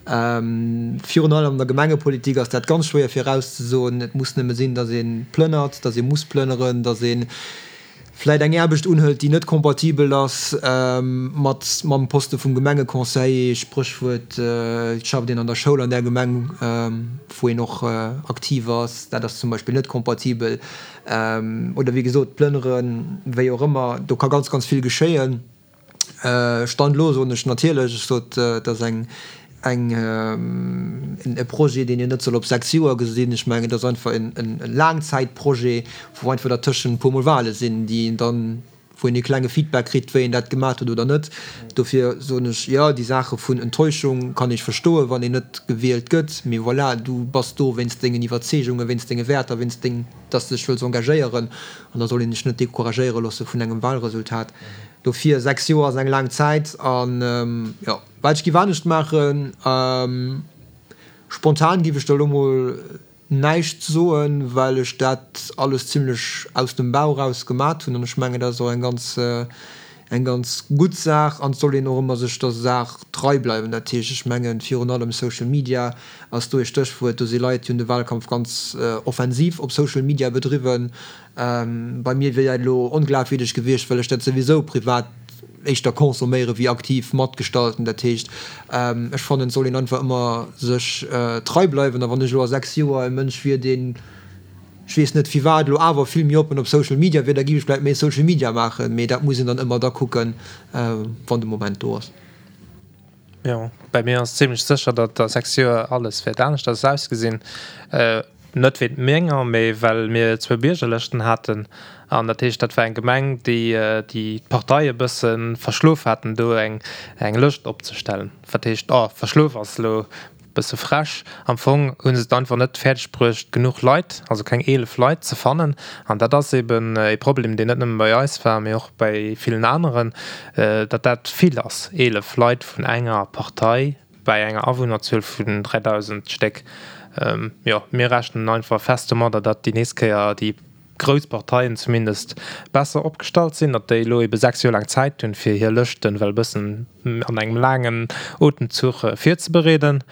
Virun allem an der Gemengepolitik ass dat ganz schwéier virauszesoen. Et muss nëmme sinn, datt ee plënnert, datt ee muss plënneren, datt ee vläit eng Aarbecht unhëlt, déi net kompatibel ass mat mam Poste vum Gemengeconseiller, Spréchwuert, et schafft een an der Schoul an där Gemeng, wou een och aktiv ass, dat ass zum Beispill net kompatibel, oder wéi gesot d'Plënneren, wéi och ëmmer, do ka ganz, ganz vill geschéien. Stand elo soen ech natierlech, ech sot, et ass eng, eng, e Projet, deen een net soll op 6 Joer gesinn. Ech mengen, et ass einfach en Laangzäitprojet, wou einfach dertëschent e puermol Wale sinn, déi een dann, wou een e klenge Feedback kritt, wéi een dat gemaat huet oder net. Dofir soen ech, jo, déi Saache vun Enttäuschung kann ech verstoen, wann een net gewielt gëtt, mee voilà, du bass do wéinst dengen Iwwerzeegungen, wéinst denge Wäerter, wéinst deng, dass de dech wëlls engagéieren an da soll een sech net decouragéiere loosse vun engem Wahlresultat. Dofir, 6 Joer ass eng laang Zäit an, jo, wat ech giff anescht maachen, spontan giff ech der elo mol näischt soen, well ech dat alles zimlech aus dem Bauch raus gemat hunn an ech mengen, dat ass och eng ganz, eng ganz gutt Saach an et soll een och ëmmer sech der Saach trei bleiwen. Dat heescht, ech mengen, virun allem Social Media ass do ee Stéchwuert. Do si Leit, déi hunn de Wahlkampf ganz offensiv op Social Media bedriwwen. Bei mir wier dat elo onglafwierdeg gewiescht, well ech dat souwisou privat éischter consomméiere wéi aktiv matgestalten. Dat heescht, ech fannen, et soll een einfach ëmmer sech trei bleiwen. A wann ech elo a 6 Joer e Mënsch wier, deen. ech weess net firwat, elo awer vill méi oppen op Social Media wier, da géif ech vläicht méi Social Media maachen. Mee dat muss een dann ëmmer da kucken, wann de Moment do ass. Jo, bei mir ass zimlech sécher, datt a 6 Joer alles wäert aneschters ausgesinn. Net wéint menger, mee well mir zwou Biergerlëschten haten. An dat heescht, dat war eng Gemeng, déi déi d'Partei e bësse verschlof haten, do eng eng Lëscht opzestellen. Wat heescht, oh, verschlof ass elo bësse frech. Am Fong hu se et einfach net fäerdeg bruecht, genuch Leit, also keng 11 Leit ze fannen. An dat ass eben e Problem, deen net nëmme bei eis war, mee och bei villen aneren, datt dat vill ass, 11 Leit vun enger Partei bei enger Awunnerzuel vun 3.000 Stéck. Jo, mir rechnen einfach fest domadder, datt déi nächst Kéier déi grouss Parteien zumindest besser opgestallt sinn, datt déi elo ebe 6 Joer laang Zäit hunn, fir hir Lëschten well e bëssen an engem laangen Otemzuch virzebereeden.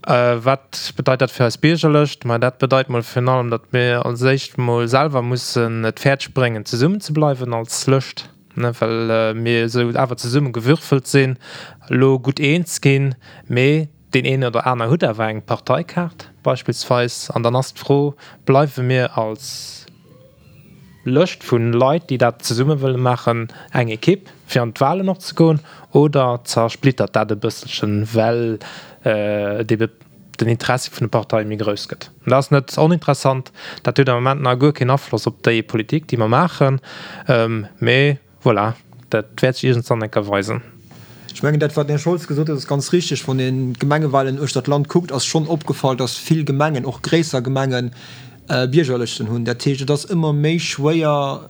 Wat bedeit dat fir eis Biergerlëscht? Ma dat bedeit mol virun allem, datt mir als éischt mol selwer mussen et fäerdeg bréngen, zesummen ze bleiwen als Lëscht, ne, well mir esou awer zesumme gewürfelt sinn, elo gutt eens ginn, mee deen een oder aner huet awer eng Parteikaart beispillsweis. An dann ass d'Fro, Bleiwe mir als Lëscht vu Leit, déi dat zesumme wëlle maachen, eng Ekipp, fir an d'Walen och ze goen, oder zersplittert dat e bësselchen, well ebe den Interessi vun de Parteie méi grouss gëtt? Dat ass net oninteressant. Dat huet am Moment nach guer keen Afloss op déi Politik, déi mer maachen, mee voilà, dat wäert sech iergendwann eng Kéier weisen. Ech mengen, dat, wat den Här Scholz gesot huet, ass ganz richtig. Wann een d'Gemengewahlen uechter d'Land kuckt, ass schonn opgefall, dass vill Gemengen, och gréisser Gemengen, Biergerlëschten hunn. Dat heescht, et ass ëmmer méi schwéier,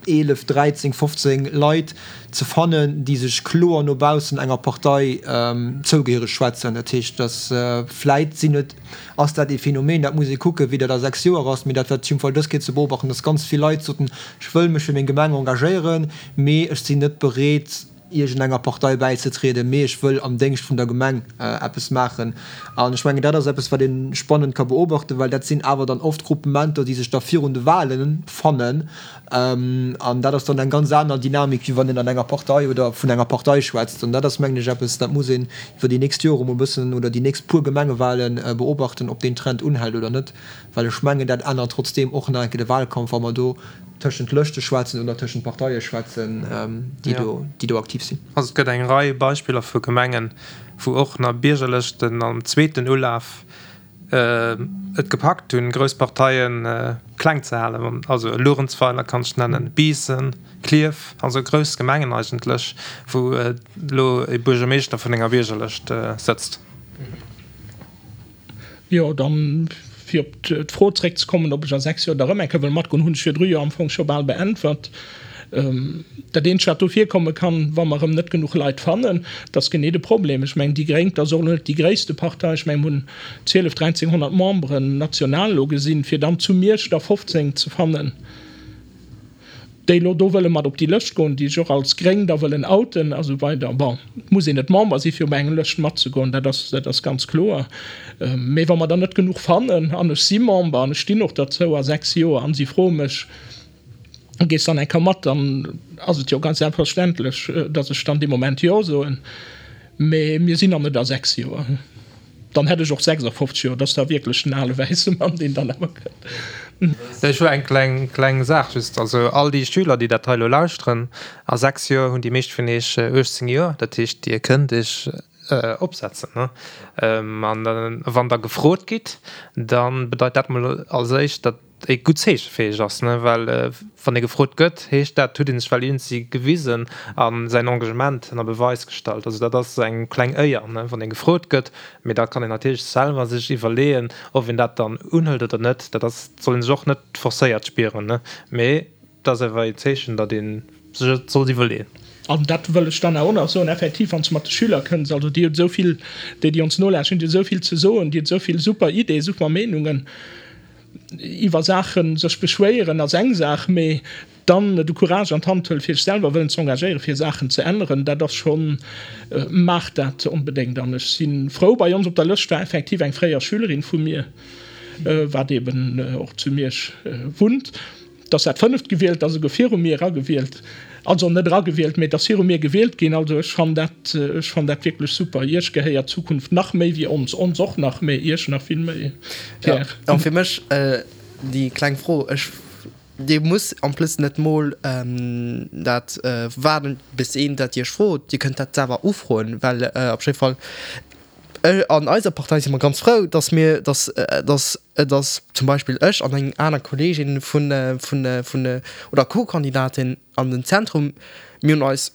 11, 13, 15 Leit ze fannen, déi sech kloer no baussen enger Partei zougehéiereg schwätzen. Dat heescht, dass vläit sinn et, ass dat ee Phänomen, dat muss ee kucken, wéi dat a 6 Joer ass, mee dat wat op jidde Fall dës Kéier ze beobachten, dass ganz vill Leit soten, ech wëll mech fir meng Gemeng engagéieren, mee ech sinn net bereet, iergendenger Partei bäizetrieden, mee ech wëll am Déngscht vun der Gemeng eppes maachen. An ech mengen, dat ass eppes, wat ee spannend ka beobachten, well dat sinn awer dann oft Gruppementer, déi sech da virun de Wahlen fannen. An dat ass dann eng ganz aner Dynamik, wéi wann een an enger Partei oder vun enger Partei schwätzt. An dat ass, mengen ech, eppes, dat muss een iwwer déi nächst Jore mol e bëssen oder déi nächst puer Gemengewahlen beobachten, ob deen Trend unhält oder net. Well ech mengen, dat ännert trotzdeem och nach eng Kéier de Wahlkampf, wa mer do tëschent Lëschte schwätzen oder tëschent Parteie schwätzen, déi do, déi do aktiv sinn. Also et gëtt eng Rei Beispiller vu Gemengen, wou och nach Biergerlëschten am zweeten Ulaf et gepackt hunn, grouss Parteie kleng ze halen. Also Luerenzweiler kann ech nennen, Biissen, Klierf, also grouss Gemengen eigentlech, wou elo e Buergermeeschter vun enger Biergerlëscht sëtzt. Jo, dann, fir op d'Fro zréckzekommen, ob ech a 6 Joer da rëm eng Kéier wëll matgoen, hunn ech virdru jo am Fong scho bal beäntwert. Dat eenzegt, wat do virkomme kann, wa mer erëm net genuch Leit fannen, dat ass genee de Problem. Ech mengen, déi Gréng, dat ass och elo net déi gréisste Partei, ech mengen, mir hunn 12, 1300 Memberen national elo gesinn, fir dann zu Miersch der 15 ze fannen, déi elo do wëlle mat op déi Lëscht goen, déi sech och als gréng da wëllen outen a sou weider. Bon, et muss een net Member si fir op eng Lëscht matzegoen, dat ass, dat ass ganz kloer. Mee wa mer der net genuch fannen, an ech si Member an ech stinn och derzou a 6 Joer, an si froe mech, gees dann eng Kéier mat, dann ass et jo ganz selbstverständlech, datt ech dann dee Moment Jo soen. Mee mir sinn nach net a 6 Joer. Dann hätt ech och 56 Joer. Dat ass da wierklech den ale wäisse Mann, deen dann awer kënnt. Ech hu eng kleng, kleng Saach just. Also all déi Schüler, déi dat hei elo lauschteren, a 6 Joer hunn déi meescht vun iech 18 Joer. Dat heescht, Dir kënnt iech opsetzen. An wann Der gefrot gitt, da bedeit dat mol als éischt, datt e gutt Zeeche fir iech ass, ne, well wann ee gefrot gëtt, heescht dat, huet ee sech well iergendwéi gewisen a säin Engagement ënner Beweis gestallt. Also dat ass eng kleng Éier, ne, wann ee gefrot gëtt. Mee da kann een natierlech selwer sech iwwerleeën, ob een dat dann unhëlt oder net. Dat ass, soll ee sech och net forcéiert spieren, ne, mee dat ass awer een Zeechen, datt ee sech et sollt iwwerleeën. An dat wëll ech dann awer och nach soen, effektiv, wann s de mat de Schüler kënns, also déi hunn esou vill, déi, déi ons nolauschteren, déi hunn esou vill ze soen, déi hunn esou vill super Ideeë, super Meenungen. Iwwer Saache sech beschwéieren ass eng Saach, mee dann de Courage an d'Hand huelen, fir sech selwer wëllen ze engagéieren, fir Saachen ze änneren, dat ass schonn, maacht dat onbedéngt. An ech si frou, bei ons op der Lëscht war effektiv eng fréier Schülerin vu mir, wat eeben och zu Miersch wunnt. Et ass dat fënneft gewielt, ass esouguer viru mir eragewielt, also net eragewielt, mee et ass viru mir gewielt ginn. Also ech fannen dat, ech fannen dat wierklech super. Iech gehéiert d'Zukunft nach méi wéi ons, ons och nach, mee Iech nach vill méi, Pierre. Jo, fir mech. déi kleng Fro. Ech, Dir musst en plus net mol dat waarden, bis een dat Iech frot. Dir kënnt dat selwer ufroen, well op jidde Fall an eiser Partei si mer ganz frou, dass mir, dass, dass, dass zum Beispill ech an eng aner Kolleegin vun, vun, vun oder Co-Kandidatin an den Zentrum, mir hunn eis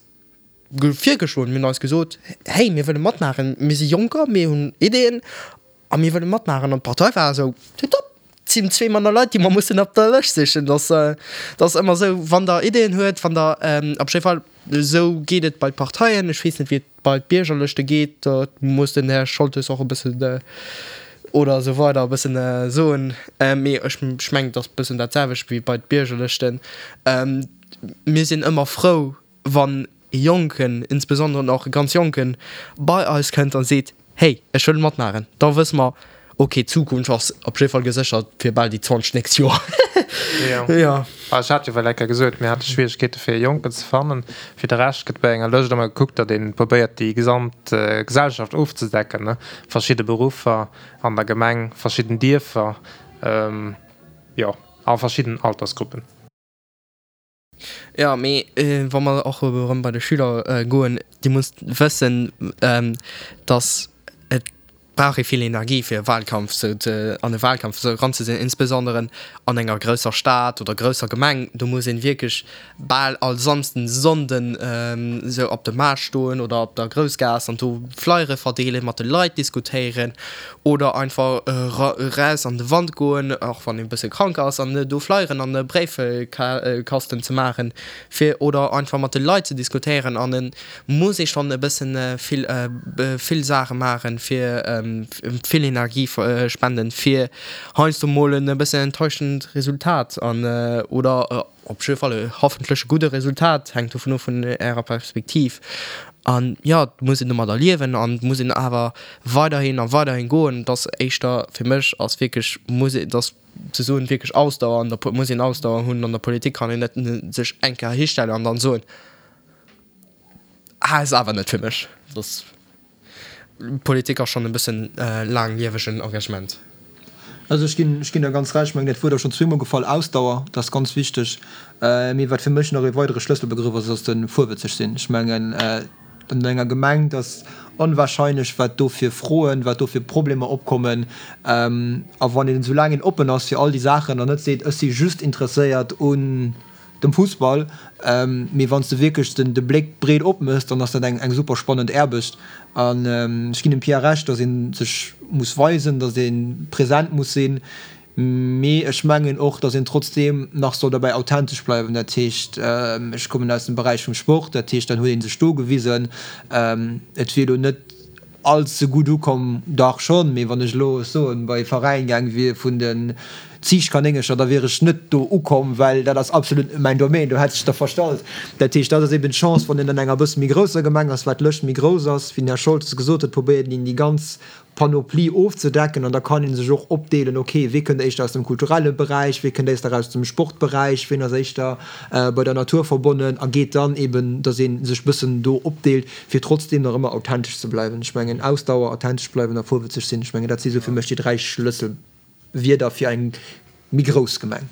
virgeschloen, mir hunn eis gesot, hey, mir wëlle matmaachen, mir si Jonker, mir hunn Ideeën a mir wëlle matmaachen. An d'Partei war esou, tipptopp, et sinn zwee manner Leit, déi mer mussen op der Lëscht sichen. Dat ass ëmmer esou, wann Der Ideeën huet, wann Der, op jidde Fall, esou geet et bei d'Parteien, ech weess net, wéi et bei d'Biergerlëschte geet, do muss den Här Scholtes och e bëssen oder esou weider e bëssen soen, mee ech mengen, et ass e bëssen dat selwecht wéi bei d'Biergerlëschten. Mir sinn ëmmer frou, wann e Jonken, insbesondere och e ganz Jonken, bei eis kënnt a seet, Hey, ech wëll matmaachen, da wësse mer, ok, d'Zukunft ass op jidde Fall geséchert fir bal déi 20 nächst Joer. Jo. Ech hat jo well eng Kéier gesot, mir hate Schwieregkeete fir e Jonken ze fannen. Fir de Rescht gëtt bei enger Lëscht ëmmer gekuckt, datt ee probéiert déi gesamt Gesellschaft ofzedecken, ne, verschidde Beruffer an der Gemeng, verschidden Dierfer, jo, a verschidden Altersgruppen. Jo, mee wa mer och erëm bei de Schüler goen, Dir musst wëssen, datt et brauch ee vill Energie fir e Wahlkampf sou ze, an e Wahlkampf esou eranzesinn, insbesondere an enger grousser Stad oder grousser Gemeng. Do muss een wierklech bal all Samsden, Sonnden esou op de Maart stoen oder op der Groussgaass an do Flyere verdeelen, mat de Leit diskutéieren Oder einfach eraus an de Wand goen, och wann een e bësse krank ass, an do Flyeren an e Bréifkasten ze maachen, fir oder einfach mat de Leit ze diskutéieren. An et muss ee schonn e bëssen vill, vill Saache maachen, fir vill Energie spenden, fir heiansdo mol en e bëssen enttäuschend Resultat an oder Op jidde Fall e hoffentlech e gudde Resultat, hänkt dovun of vun Ärer Perspektiv. An jo, et muss een domadder liewen an et muss een awer weiderhin a weiderhin goen. Et ass éischter, fir mech ass wierklech, muss een, et ass ze soen, wierklech Ausdauer an der, muss een Ausdauer hunn. An der Politik kann een net sech eng Kéier histellen an dann soen, ah, ass awer net fir mech. Et ass. Politik ass schonn e bëssen laangliewegen Engagement. Also ech ginn, ech ginn der ganz Recht. Ech mengen, dat Wuert ass schonn zweemol gefall, Ausdauer, dat ass ganz wichteg. Mee wat fir mech nach ee weidere Schlësselbegrëff ass, ass de vorwëtzeg sinn. Ech mengen, an enger Gemeng, et ass onwahrscheinlech, wat do fir Froen, wat do fir Problemer opkommen. A wann een, soulaang een oppen ass fir all déi Saachen an net seet, ech si just interesséiert un, dem Fussball, mee wann s de wierklech den de Bléck breet opmëss, dann ass dat eng eng super spannend Aarbecht. An ech ginn dem Pierre Recht, datt ee sech muss weisen, datt ee present muss sinn, mee ech mengen och, datt een trotzdeem nach soll derbäi authentesch bleiwen. Dat heescht, ech kommen aus dem Beräich vum Sport, dat heescht, dann huet ee sech do gewisen. Et wier elo net all ze gutt ukomm, dach schonn, mee wann ech elo, ech soen, bei e Veräin gaang wier vun den Ziichtkanéngercher, da wier ech net do ukomm, well dat ass absolut net mäin Domaine, do hätt sech der verstallt. Dat heescht, dat ass eben d'Chance, wann een an enger bësse méi grousser Gemeng ass, wat d'Lëscht méi grouss ass, wéi den Här Scholtes gesot huet, probéiert een déi ganz Panoplie ofzedecken an da kann ee sech och opdeelen, ok, wee kënnt éischter aus dem kulturelle Beräich, wee kënnt éister aus dem Sportberäich, ween ass éischter bei der Natur verbonnen a geet dann eben, datt ee sech bëssen do opdeelt, fir trotzdeem nach ëmmer authentesch ze bleiwen. Ech mengen, Ausdauer, authentesch bleiwen a vorwëtzeg sinn, ech mengen, dat si sou fir mech déi 3 Schlësselwierder fir eng méi grouss Gemeng.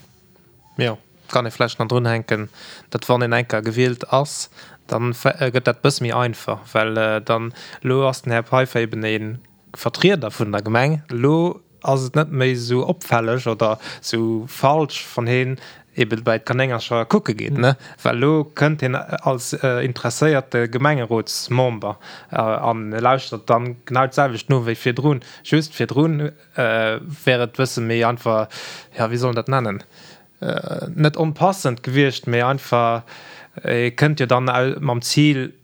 Jo, kann ee vläicht nach drunhänken, datt wann een eng Kéier gewielt ass, da gëtt dat e bësse méi einfach, well dann, elo ass den Här Peiffer eben e Vertrieder vun der Gemeng, elo ass et net méi esou opfälleg oder esou falsch, wann heen eben bei d'Kanéngercher kucke geet, ne? Well elo kënnt hien als interesséierte Gemengerotsmember an lauschtert dann genau d'selwecht no wéi virdrun. Just virdrun wär et bësse méi einfach, jo, wéi soll een dat nennen, net onpassend gewiescht, mee einfach, e kënnt jo dann mam Zil,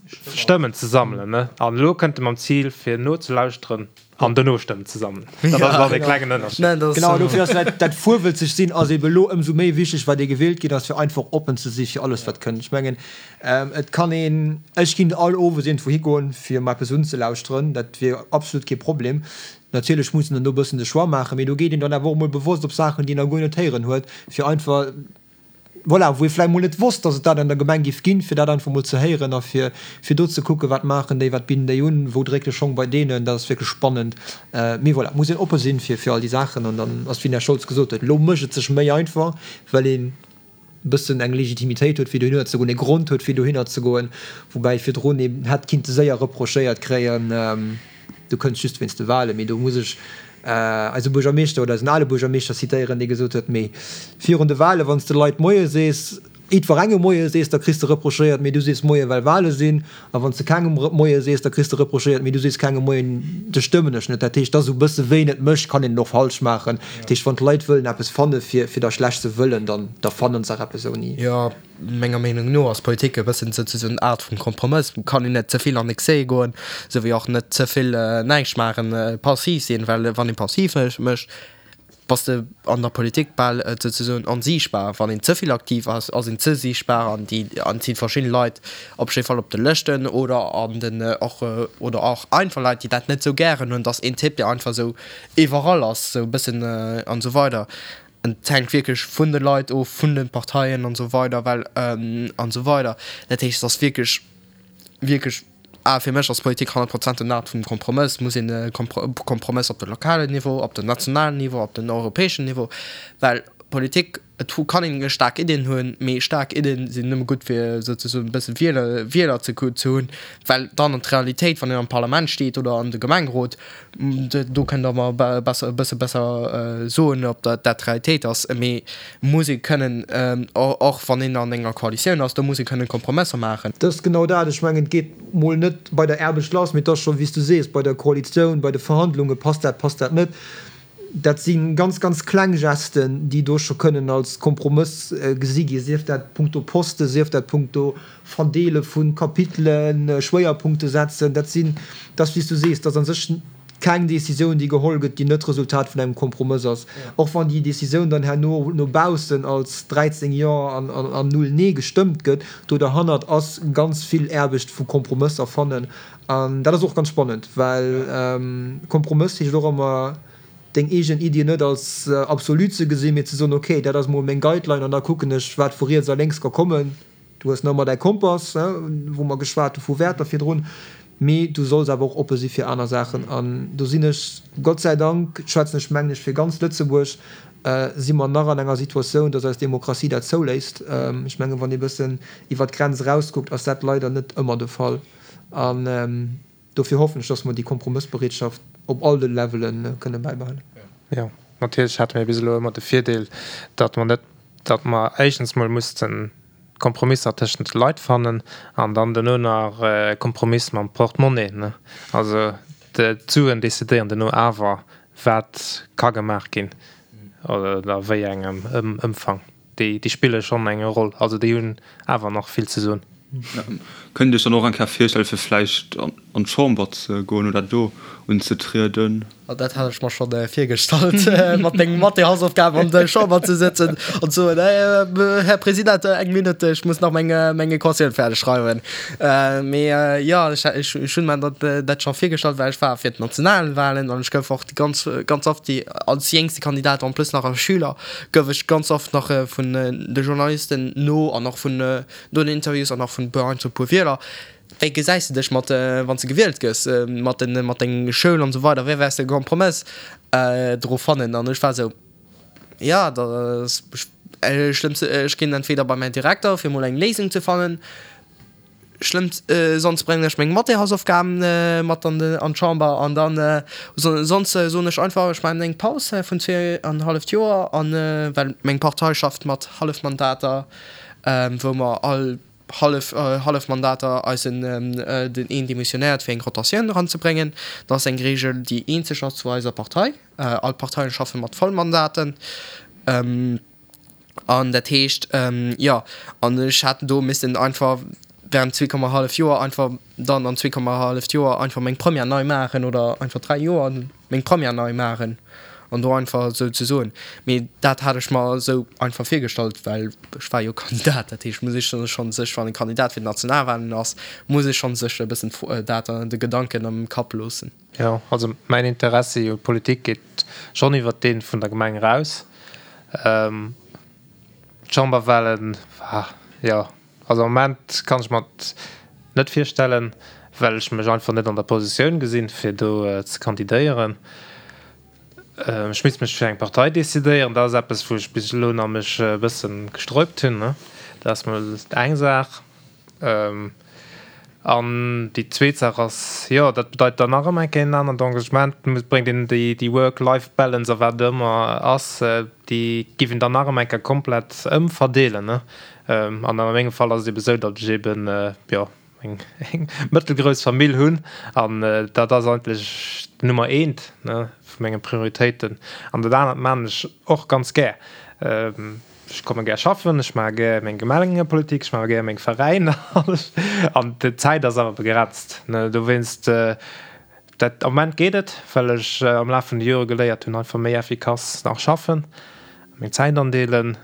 Stëmmen ze sammelen, ne? An elo kënnt e mam Zil, fir nozelauschteren an dono Stëmmen ze sammelen. Dat ass dann e klengen Ënnerscheed. Genau, dofir ass dat, dat vorwëtzeg sinn ass ebe elo ëmsou méi wichteg, wat ee gewielt ginn ass, fir einfach oppen ze si fir alles, wat kënnt. Ech mengen, et kann een, ech ginn all owes iergendwou higoen, fir mer eppes unzelauschteren, dat wier absolut kee Problem. Natierlech muss een dann do e bëssen de Choix maachen, mee do geet een dann awer och emol bewosst op Saachen, déi een nach guer net héieren huet, fir einfach. Voilà, wou ee vläicht mol net wosst, datt et dat an der Gemeng géif ginn, fir dat einfach mol ze héieren a fir, fir do ze kucken, wat maachen déi, wat bidden déi un, wou dréckt de Schong bei deenen. Dat ass wierklech spannend. Mee voilà, et muss een oppe sinn fir, fir all déi Saachen. An dann ass, wéi den Här Scholz gesot huet, elo mécht et sech méi einfach, well een e bëssen eng Legitimitéit huet, fir dohinner ze goen, ee Grond huet, fir dohinner ze goen, woubäi virdrun een hätt kinnte séier reprochéiert kréien, Du kënns just wéinst de Wahlen. Mee do muss ech eise Buergermeeschter oder eisen ale Buergermeeschter zitéieren, dee gesot huet, Mee virun de Wahlen, wann s de Leit Moie sees, jiddwerengem Moie sees, da kriss de reprochéiert, mee du sees Moie well Wahle sinn. A wann s de kengem Moie sees, da kriss de reprochéiert, mee du sees kengem Moien, dech stëmmen ech net. Dat heescht, et ass esou e bësse wéi een et mécht, kann een et och falsch maachen. Dat heescht, wann d'Leit wëllen eppes fanne fir der schlecht ze wëllen, dann da fannen se eppes ouni. Jo. Menger Meenung no ass Politik e bëssen souzesoen en Art vum Kompromëss. Kann een net ze vill an Excès goen, esou wéi och net ze vill näischt maachen, passiv sinn, well wann ee passiv mécht, bass de an der Politik bal souzesoen onsiichtbar. Wann een ze vill aktiv ass, ass een ze siichtbar an déi an et si verschidde Leit op jidde Fall op de Lëschten oder an den och oder och einfach Leit, déi dat net esou gären hunn, dass een Typ, dee einfach esou iwwerall ass, esou e bëssen an esou weider. Et hänkt wierklech vun de Leit of, vun de Parteien an esou weider, well an esou weider. Dat heescht, et ass wierklech, wierklech, ah fir mech ass Politik 100 Prozent en Art vum Kompromëss. Et muss een e Kompromëss op de lokalen Niveau, op den nationalen Niveau, op den europäeschen Niveau, well Politik, et kann een staark Iddien hunn, mee staark Iddien sinn nëmme gutt fir souzesoen e bësse Wieler, Wieler ze hunn, well dann an d'Realitéit, wann een am Parlament steet oder an de Gemengerot, Do kënnt Der mer besser, e bësse besser soen, ob dat d'Realitéit ass. Mee muss ee kënnen, och wann een an enger Koalitioun ass, do muss ee kënnen Kompromësser maachen. Dat ass genau dat. Ech mengen, et geet mol net bei der Aarbecht lass, mee et ass scho, wéi s du sees, bei der Koalitioun, bei de Verhandlungen, passt dat, passt dat net. Dat si ganz, ganz kleng Gesten, déi do scho kënnen als Kompromëss gesi ginn, sief dat punkto Posten, sief dat punkto Verdeele vu Kapitelen, Schwéierpunkte setzen. Dat sinn, dat ass wéi s du sees, dat ass a sech keng Décisioun, déi geholl gëtt, déi net d'Resultat vun engem Kompromëss ass. Och wann déi Décisioun dann herno no baussen als 13 Jo an 0 Nee gestëmmt gëtt, do derhannert ass ganz vill Aarbecht vu Kompromësser fannen. An dat ass och ganz spannend, well Kompromëss heescht och ëmmer, deng eegen Iddien net als absolut ze gesinn, mee ze soen, okay, dat ass mol meng Guideline an da kucken ech, wat vu riets a lénks ka kommen. Du hues nach ëmmer däi Kompass, wou mer geschwat hu vu Wäerter virdrun, mee du solls awer och oppe si fir aner Saachen. An do sinn ech, Gott sei Dank, schwätzen ech mengen ech fir ganz Lëtzebuerg, si mer nach an enger Situatioun, datt eis Demokratie dat zouléisst. Ech mengen, wann ee bëssen iwwert d'Grenz erauskuckt, ass dat leider net ëmmer de Fall. An dofir hoffen ech, datt mer déi Kompromëssbereetschaft op all de Levele kënne bäibehalen. Jo, natierlech hate mir bis elo ëmmer de Virdeel, datt mer net, datt mer éischtens mol mussten Kompromisser tëschent de Leit fannen an dann duerno nach e Kompromiss mam Portemonnaie, ne. Also d'Suen decidéieren duerno awer, wat ka gemaach ginn oder a wéi engem Ëmfang. Déi spille schonn eng Roll, also déi hunn awer nach vill ze soen. Kënnt Dir Iech dann och eng Kéier virstelle fir vläicht an d'Chamber ze goen oder do unzetrieden? Dat hat ech mer schonn virgestallt, mat menge Mathé-Hausaufgaben an der Chamber ze sëtzen an ze soen, Här President, eng Minutt, ech muss nach meng meng Equatioun fäerdeg schreiwen. Mee jo, ech ech hunn mer dat dat scho virgestallt, well ech war fir d'Nationalwahlen an ech gouf och ganz ganz oft déi als jéngste Kandidat, en plus nach als Schüler, gouf ech ganz oft nach vun de Journalisten no an och vun no den Interviews an och vun e puer Wieler, Wéi gesäis de dech mat, wann s de gewielt gëss, mat den, mat deng Schoul an esou weider, wéi wäers de e Kompromëss dru fannen? An ech war esou, jo, da schlëmmst, ech ginn entweder bei mäin Direkter fir mol eng Léisung ze fannen, schlëmmst, sonst bréngen ech meng Mathé-Hausaufgaben mat an de, an d'Chamber an dann sonst soen ech einfach, ech maachen eng Paus vun zweeanhalleft Joer an, well meng Partei schafft mat Hallefmandater, wou mer all hallef hallef Mandater eisen den een demissionéiert fir eng Rotatioun eranzebréngen. Dat ass eng Reegel déi eenzeg ass zu eiser Partei. All d'Parteien schaffe mat Vollmandaten. An dat heescht jo an ech hat do missten einfach während 2,5 Joer einfach dann an 2,5 Joer einfach meng Première nei maachen oder einfach 3 Joer meng Première nei maachen an do einfach esou ze soen. Mee dat hat ech mer esou einfach virgestallt, well ech war jo Kandidat. Dat heescht, muss ech schonn sech, wann e Kandidat fir d'Nationalwahlen ass, muss ee schonn sech e bëssen dat de Gedanken am Kapp loossen. Jo, also mäin Interessi u Politik geet schonn iwwert dee vun der Gemeng eraus. D'Chamberwahlen, jo, also am Moment kann ech mer et net virstellen, well ech mech einfach net an der Positioun gesinn, fir do ze kandidéieren. Ech misst mech fir eng Partei decidéieren. Dat ass eppes, wou ech bis elo nach mech e bësse gesträubt hunn. Dat ass mol eng Saach. An déi zweet Saach ass, jo, dat bedeit dann nach ëmmer eng Kéier en anert Engagement. Et bréngt een déi Work-Life-Balance a wat et ëmmer ass, déi giff een dann nach ëmmer eng Kéier komplett ëmverdeelen. An a mengem Fall ass et ebe sou, datt ech eben, jo, eng mëttelgrouss Famill hunn an dat ass eigentlech d'Nummer eent vu menge Prioritéiten. An dat anert maachen ech och ganz gär. Ech komme gär schaffen, ech maache gär meng Gemengepolitik, ech maache gär meng Veräiner an d'Zäit ass awer begrenzt. Dowéinst, dat am Moment geet et, well ech am Laf vun de Jore geléiert hunn, einfach méi effikass nach schaffen, meng Zäit andeelen.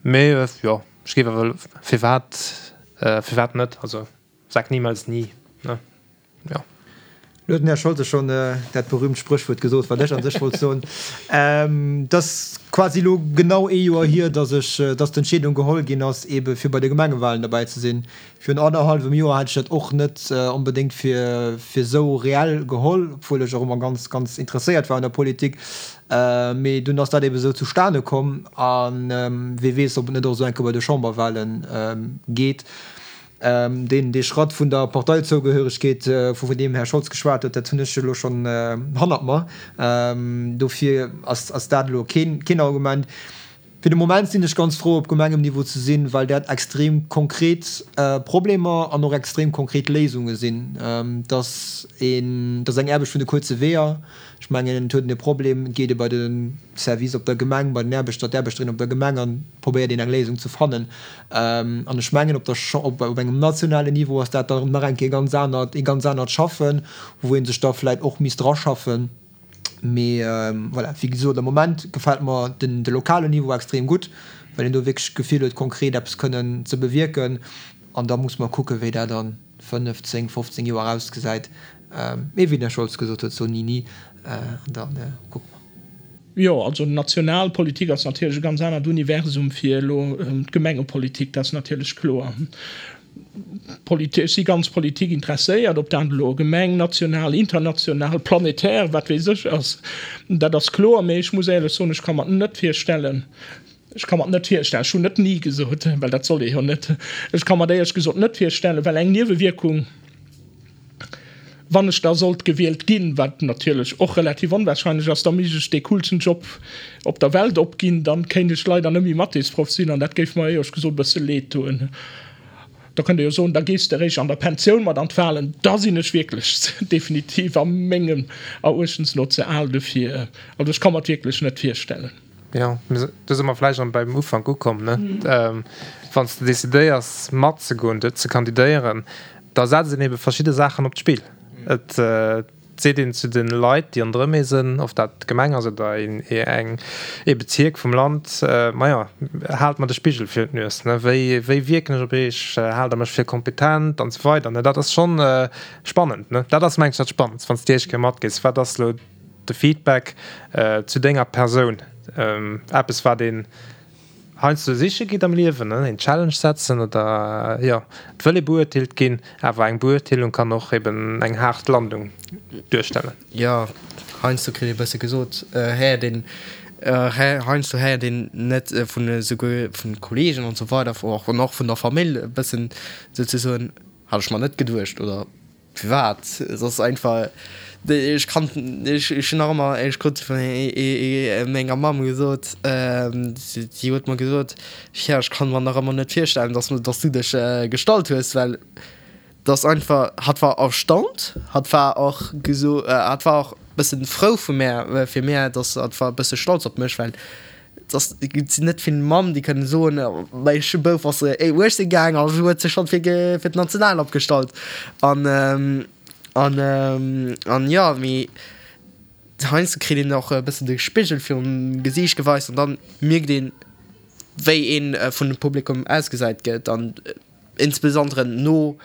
Mee jo, ech géif awer, firwat, firwat net? Also sag niemals nie, ne? Jo. Lo huet den Här Scholtes schonn dat berühmt Spréchwuert gesot, wat ech an sech wollt soen. Et ass quasi elo genau ee Joer hier, dass ech, dass d'Entscheedung geholl ginn ass, eebe fir bei de Gemengewahlen derbäi ze sinn. Virun annerhallwem Joer hätt ech dat och net onbedéngt fir esou reell geholl, obwuel ech och ëmmer ganz, ganz interesséiert war un der Politik. Mee dunn ass dat ebe sou zustane komm. A wee weess, ob et net och esou eng Kéier bei de Chamberwahle geet. Deen, dee Schratt vun der Parteizougehéiregkeet, vu deem Här Scholz geschwat huet, dat hunn ech elo schonn hannert mer. Dofir ass dat elo keen Argument. Fir de Moment sinn ech ganz frou, op Gemengemniveau ze sinn, well dat extrem konkret Problemer an och extrem konkret Léisunge sinn. Et ass een, et ass eng Aarbecht vun de kuerze Weeër. Ech mengen, et huet een e Problem, et geet ee bei de Service op der Gemeng, bei den Aarbechter, d'Aarbechterin op der Gemeng an probéiert een eng Léisung ze fannen. An ech mengen, op der, op engem nationalen Niveau ass dat dann nach eng Kéier ganz anert, ee ganz anert Schaffen, wou ee sech da vläicht och misst draschaffen. Mee voilà, wéi gesot, am Moment gefält mer den de lokalen Niveau extrem gutt, well een do wierklech d'Gefill huet, konkret eppes kënnen ze bewierken. An da muss mer kucken, wéi dat a 5, 10, 15 Joer ausgesäit. Mee wéi den Här Scholz gesot huet, so ni ni. An da kucke mer. Jo, also national Politik ass natierlech e ganz anert Universum wéi elo d'Gemengepolitik, dat ass natierlech kloer. Ech si ganz Politik interesséiert, ob dat elo Gemeng, national, international, planetär, wat weess ech ass, dat ass kloer. Mee ech muss éierlech soen, ech ka mer net virstellen, ech ka mer net virstellen, ech hunn net ni gesot, well dat soll ee jo net, ech ka mer éierlech gesot net virstellen, well eng Niewewierkung, Wann ech da sollt gewielt ginn, wat natierlech och relativ onwahrscheinlech ass, da misst ech dee coolsten Job op der Welt opginn. Dann kéint ech leider net méi Mathésproff sinn an dat géif mer éierlech gesot e bësse leed doen. Da kënnt Der jo soen, da gees de eréischt an der Pensioun mat an d'Wahlen. Da sinn ech wierklech definitiv a mengem Eruechtens no ze al dofir. Also ech ka mer et wierklech net virstellen. Jo, do si mer vläicht erëm beim Ufank ukomm, ne? Wann s de decidéiers matzegoen, ze kandidéieren, da setzt een ebe verschidde Saachen op d'Spill. Et seet een zu de Leit, déi ronderëm ee sinn, of dat d'Gemeng ass oder een eng ee Bezierk vum Land, Majo, haalt mer de Spigel virun d'Nues, ne? Wéi wéi wierken ech op iech? Haalt der mech fir kompetent? An esou weider, ne? Dat ass schonn spannend, ne? Dat ass, mengen ech, dat Spannendst, wann s de déi éischt Kéier matgees, Wat ass elo de Feedback zu denger Persoun, eppes wat een heiansdo siche geet am Liewen, een Challenge setzen oder jo, et wëll ee beurteelt ginn, awer eng Beurteelung kann och eben eng haart Landung duerstellen. Jo, heiansdo kritt ee bësse gesot, héiert een, heiansdo héiert een net vun esouguer vun Kollegen an esou weider an och vun der Famill e bëssen souzesoen, hat ech mer net geduecht oder Firwat? Et ass einfach, ech kann, ech hunn nach ëmmer, ech krut vun menger Mamm gesot, si huet mer gesot, jo ech kann mer nach ëmmer net virstellen, dass dass du dech gestallt hues, well et ass einfach, hatt war erstaunt, hatt war och geso, hatt war och bëssen frou vu mär, fir mär, dass hatt war e bësse stolz op mech, well Et sinn net vill Mamm, déi kënnen soen, mäi Bouf ass 18 gaang a huet sech schonn fir d'National opgestallt. An, an, an jo, mee heiansdo kritt een och e bëssen de Spigel virum Gesiicht geweist an dann mierkt een, wéi ee vun dem Publikum ausgesäit gëtt an insbesondere no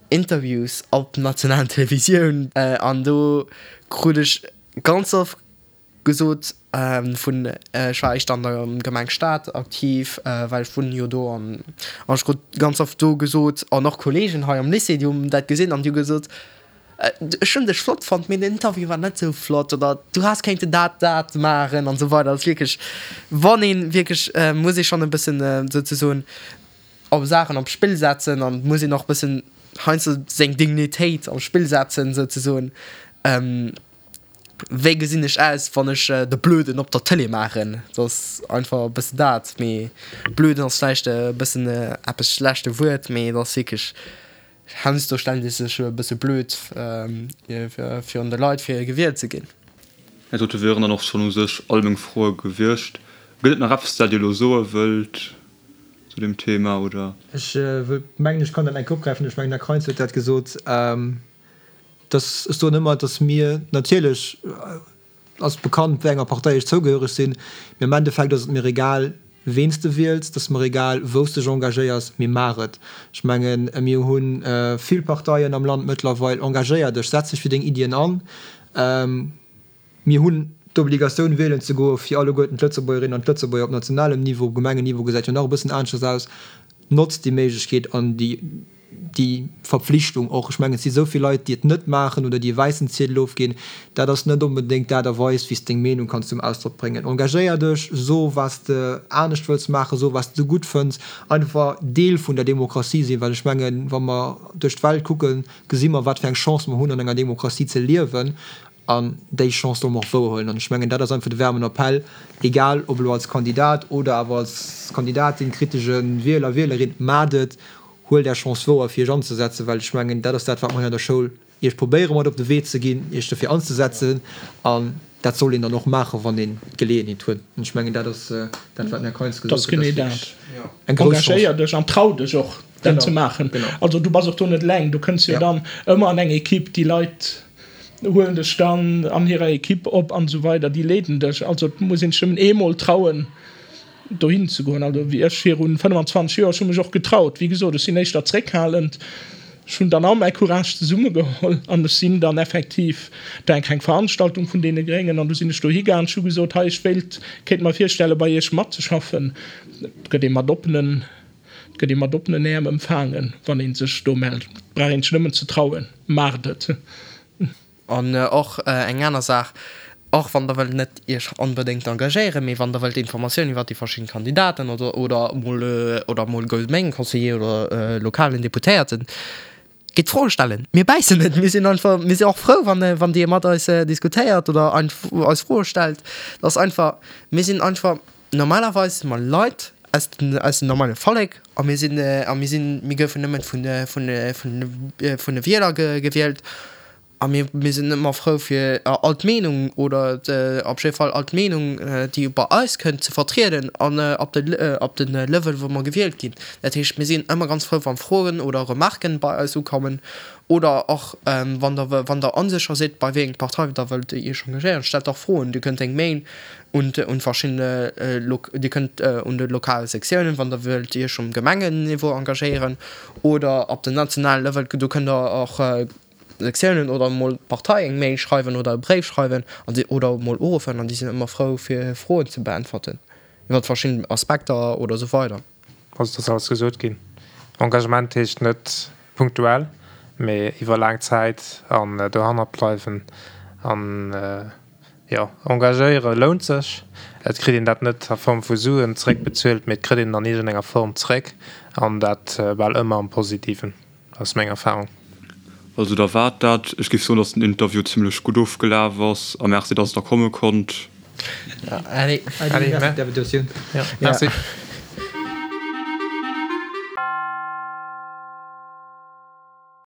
Interviews op nationalen Televisioun. An do krut ech ganz oft. gesot vun, ech war éischter an der Gemeng Stad aktiv, well ech wunnen jo do an ech krut ganz oft do gesot an och Kolleegen hei am Lycée, déi hunn dat gesinn an déi hu gesot, ech hunn dech flott fonnt, mee den Interview war net sou flott oder du häss kéinten dat, dat maachen an esou weider. Dat ass wierklech, wann ee wierklech, muss ee schonn e bëssen souzesoen op Saachen op d'Spill setzen an muss een och e bëssen heiansdo seng Dignitéit op d'Spill setzen souzesoen. Wéi gesinn ech aus, wann ech de Blöden op der Tëlee maachen? Dat ass einfach e bëssen dat. Mee Blöden ass vläicht e bëssen eppes schlechte Wuert, mee et ass wierklech, heiansdo stellt ee sech e bësse blöd virun de Leit, fir gewielt ze ginn. Dat dote wieren dann och schonn u sech all meng Froe gewiescht. Gëtt et nach eppes, dat Dir elo soe wëllt zu deem Thema, oder? Ech wëll mengen, ech kann dat eng Kéier opgräifen. Ech mengen, den Här Kreins huet dat gesot. Dass, ech soen ëmmer, dass mir, natierlech ass bekannt, wéi enger Partei ech zougehöreg sinn, mee am Endeffekt ass et mir egal, ween s de wiels, et ass mer egal, wou s dech engagéiers, mee maach et. Ech mengen, mir hu vill Parteien am Land mëttlerweil. Engagéier dech, setz dech fir deng Iddien an. Mir hunn d'Obligatioun wielen ze goe fir alleguerten d'Lëtzebuergerinnen an d'Lëtzebuerger op nationalem Niveau. Op Gemengenniveau gesäit jo nach e bëssen aneschters aus. Notzt déi Méiglechkeet an déi, déi Verpflichtung och. Ech mengen, et si esou vill Leit, déi et net maachen oder déi e wäissen Ziedel ofginn. Dat ass net onbedéngt d'Aart a Weis, wéi s de deng Meenung kanns zum Ausdrock bréngen. Engagéier dech, so wat s de anescht wëlls maachen, so wat s de gutt fënns. Einfach Deel vun der Demokratie sinn, well ech mengen, wa mer duerch d'Welt kucken, gesi mer, wat fir eng Chance mer hunn, an enger Demokratie ze liewen. An déi Chance solle mer och wouerhuelen. An ech mengen, dat ass einfach de waarmen Appell, egal ob elo als Kandidat oder awer als Kandidatin, kritesche Wieler, Wielerin, Maacht et, huelt Är Chance wouer, fir Iech anzesetzen, well ech mengen, dat ass dat, wat mer hei an der Schoul Iech probéiere mat op de Wee ze ginn, Iech dofir anzesetzen. An dat soll een dann och maachen, wann een d'Geleeënheet huet. An ech mengen, dat ass dat, wat den Här Kainz gesot huet, dat ass wierklech eng grouss Chance. Engagéier dech an trau dech och, dat ze maachen. Also du bass och do net eleng, du kënns jo dann ëmmer an eng Equipe, déi Leit huelen dech dann an hirer Equipe op an esou weider, déi leeden dech. Also et muss een sech nëmmen eemol trauen dohin ze goen. Also wéi ech virun 25 Joer, ech hu mech och getraut, wéi gesot, ech sinn éischter zréckhalend, ech hunn dann all mäi Courage zesummegeholl an ech sinn dann effektiv, et war eng kleng Veranstaltung vun deene Gréngen an du sinn ech dohi gaang, ech hu gesot, hei ech wéilt, kéint mer virstelle bei iech matzeschaffen. Et gëtt ee mat oppenen, et gëtt ee mat oppenen Äerm empfaangen, wann ee sech do mellt. Et brauch een sech nëmmen ze trauen. Maacht et! An och eng aner Saach, och wann der wëllt net iech onbedéngt engagéieren, mee wann der wëllt Informatiounen iwwert déi verschidden Kandidaten oder oder mol oder mol Gemengeconseiller oder lokalen Deputéierten, gitt Froe stellen. Mir bäissen net, mir sinn einfach, mir sinn och frou wann wann dir mat eis diskutéiert oder eis Froe stellt. Dat ass einfach, mir sinn einfach Normalerweis si mer Leit aus dem, aus dem normale Vollek a mir sinn, a mir sinn, mir goufen nëmmen vun, vun, vun, vun de Wieler gewielt a mir, mir sinn ëmmer frou fir all d'Meenung oder op jidde Fall all d'Meenung, déi bei eis kënnt, ze vertrieden an op de, op de Level wou mer gewielt ginn. Dat heescht, mir sinn ëmmer ganz frou wann Froen oder Remarken bei eis ukommen Oder och wann der wann der onsécher sidd bei wéi eng Partei der wëllt iech engagéieren, stellt och Froen. Dir kënnt eng Mail un un verschiddene Dir kënnt un de lokale Sektiounen, wann der wëllt iech um Gemengenniveau engagéieren oder op den nationale Level, do kënnt der och Sektiounen oder emol d'Partei eng Mail schreiwen oder e Bréif schreiwen an si oder emol uruffen an déi sinn ëmmer frou fir Froen ze beäntwerten iwwer verschidden Aspekter oder esou weider. Also et ass alles gesot ginn. Engagement heescht net punktuell, mee iwwer laang Zäit an dohannert bleiwen. An jo, engagéiere lount sech. Et kritt een dat net a Form vu Suen zeréckbezuelt, mee et kritt een et an iergendenger Form zeréck an dat bal ëmmer am Positiven. Ass meng Erfahrung. Also da war dat. Ech géif soen, dass den Interview zimlech gutt ofgelaf ass a Merci, dass der komme konnt. Allez. Allez, merci fir d'Invitatioun. Merci.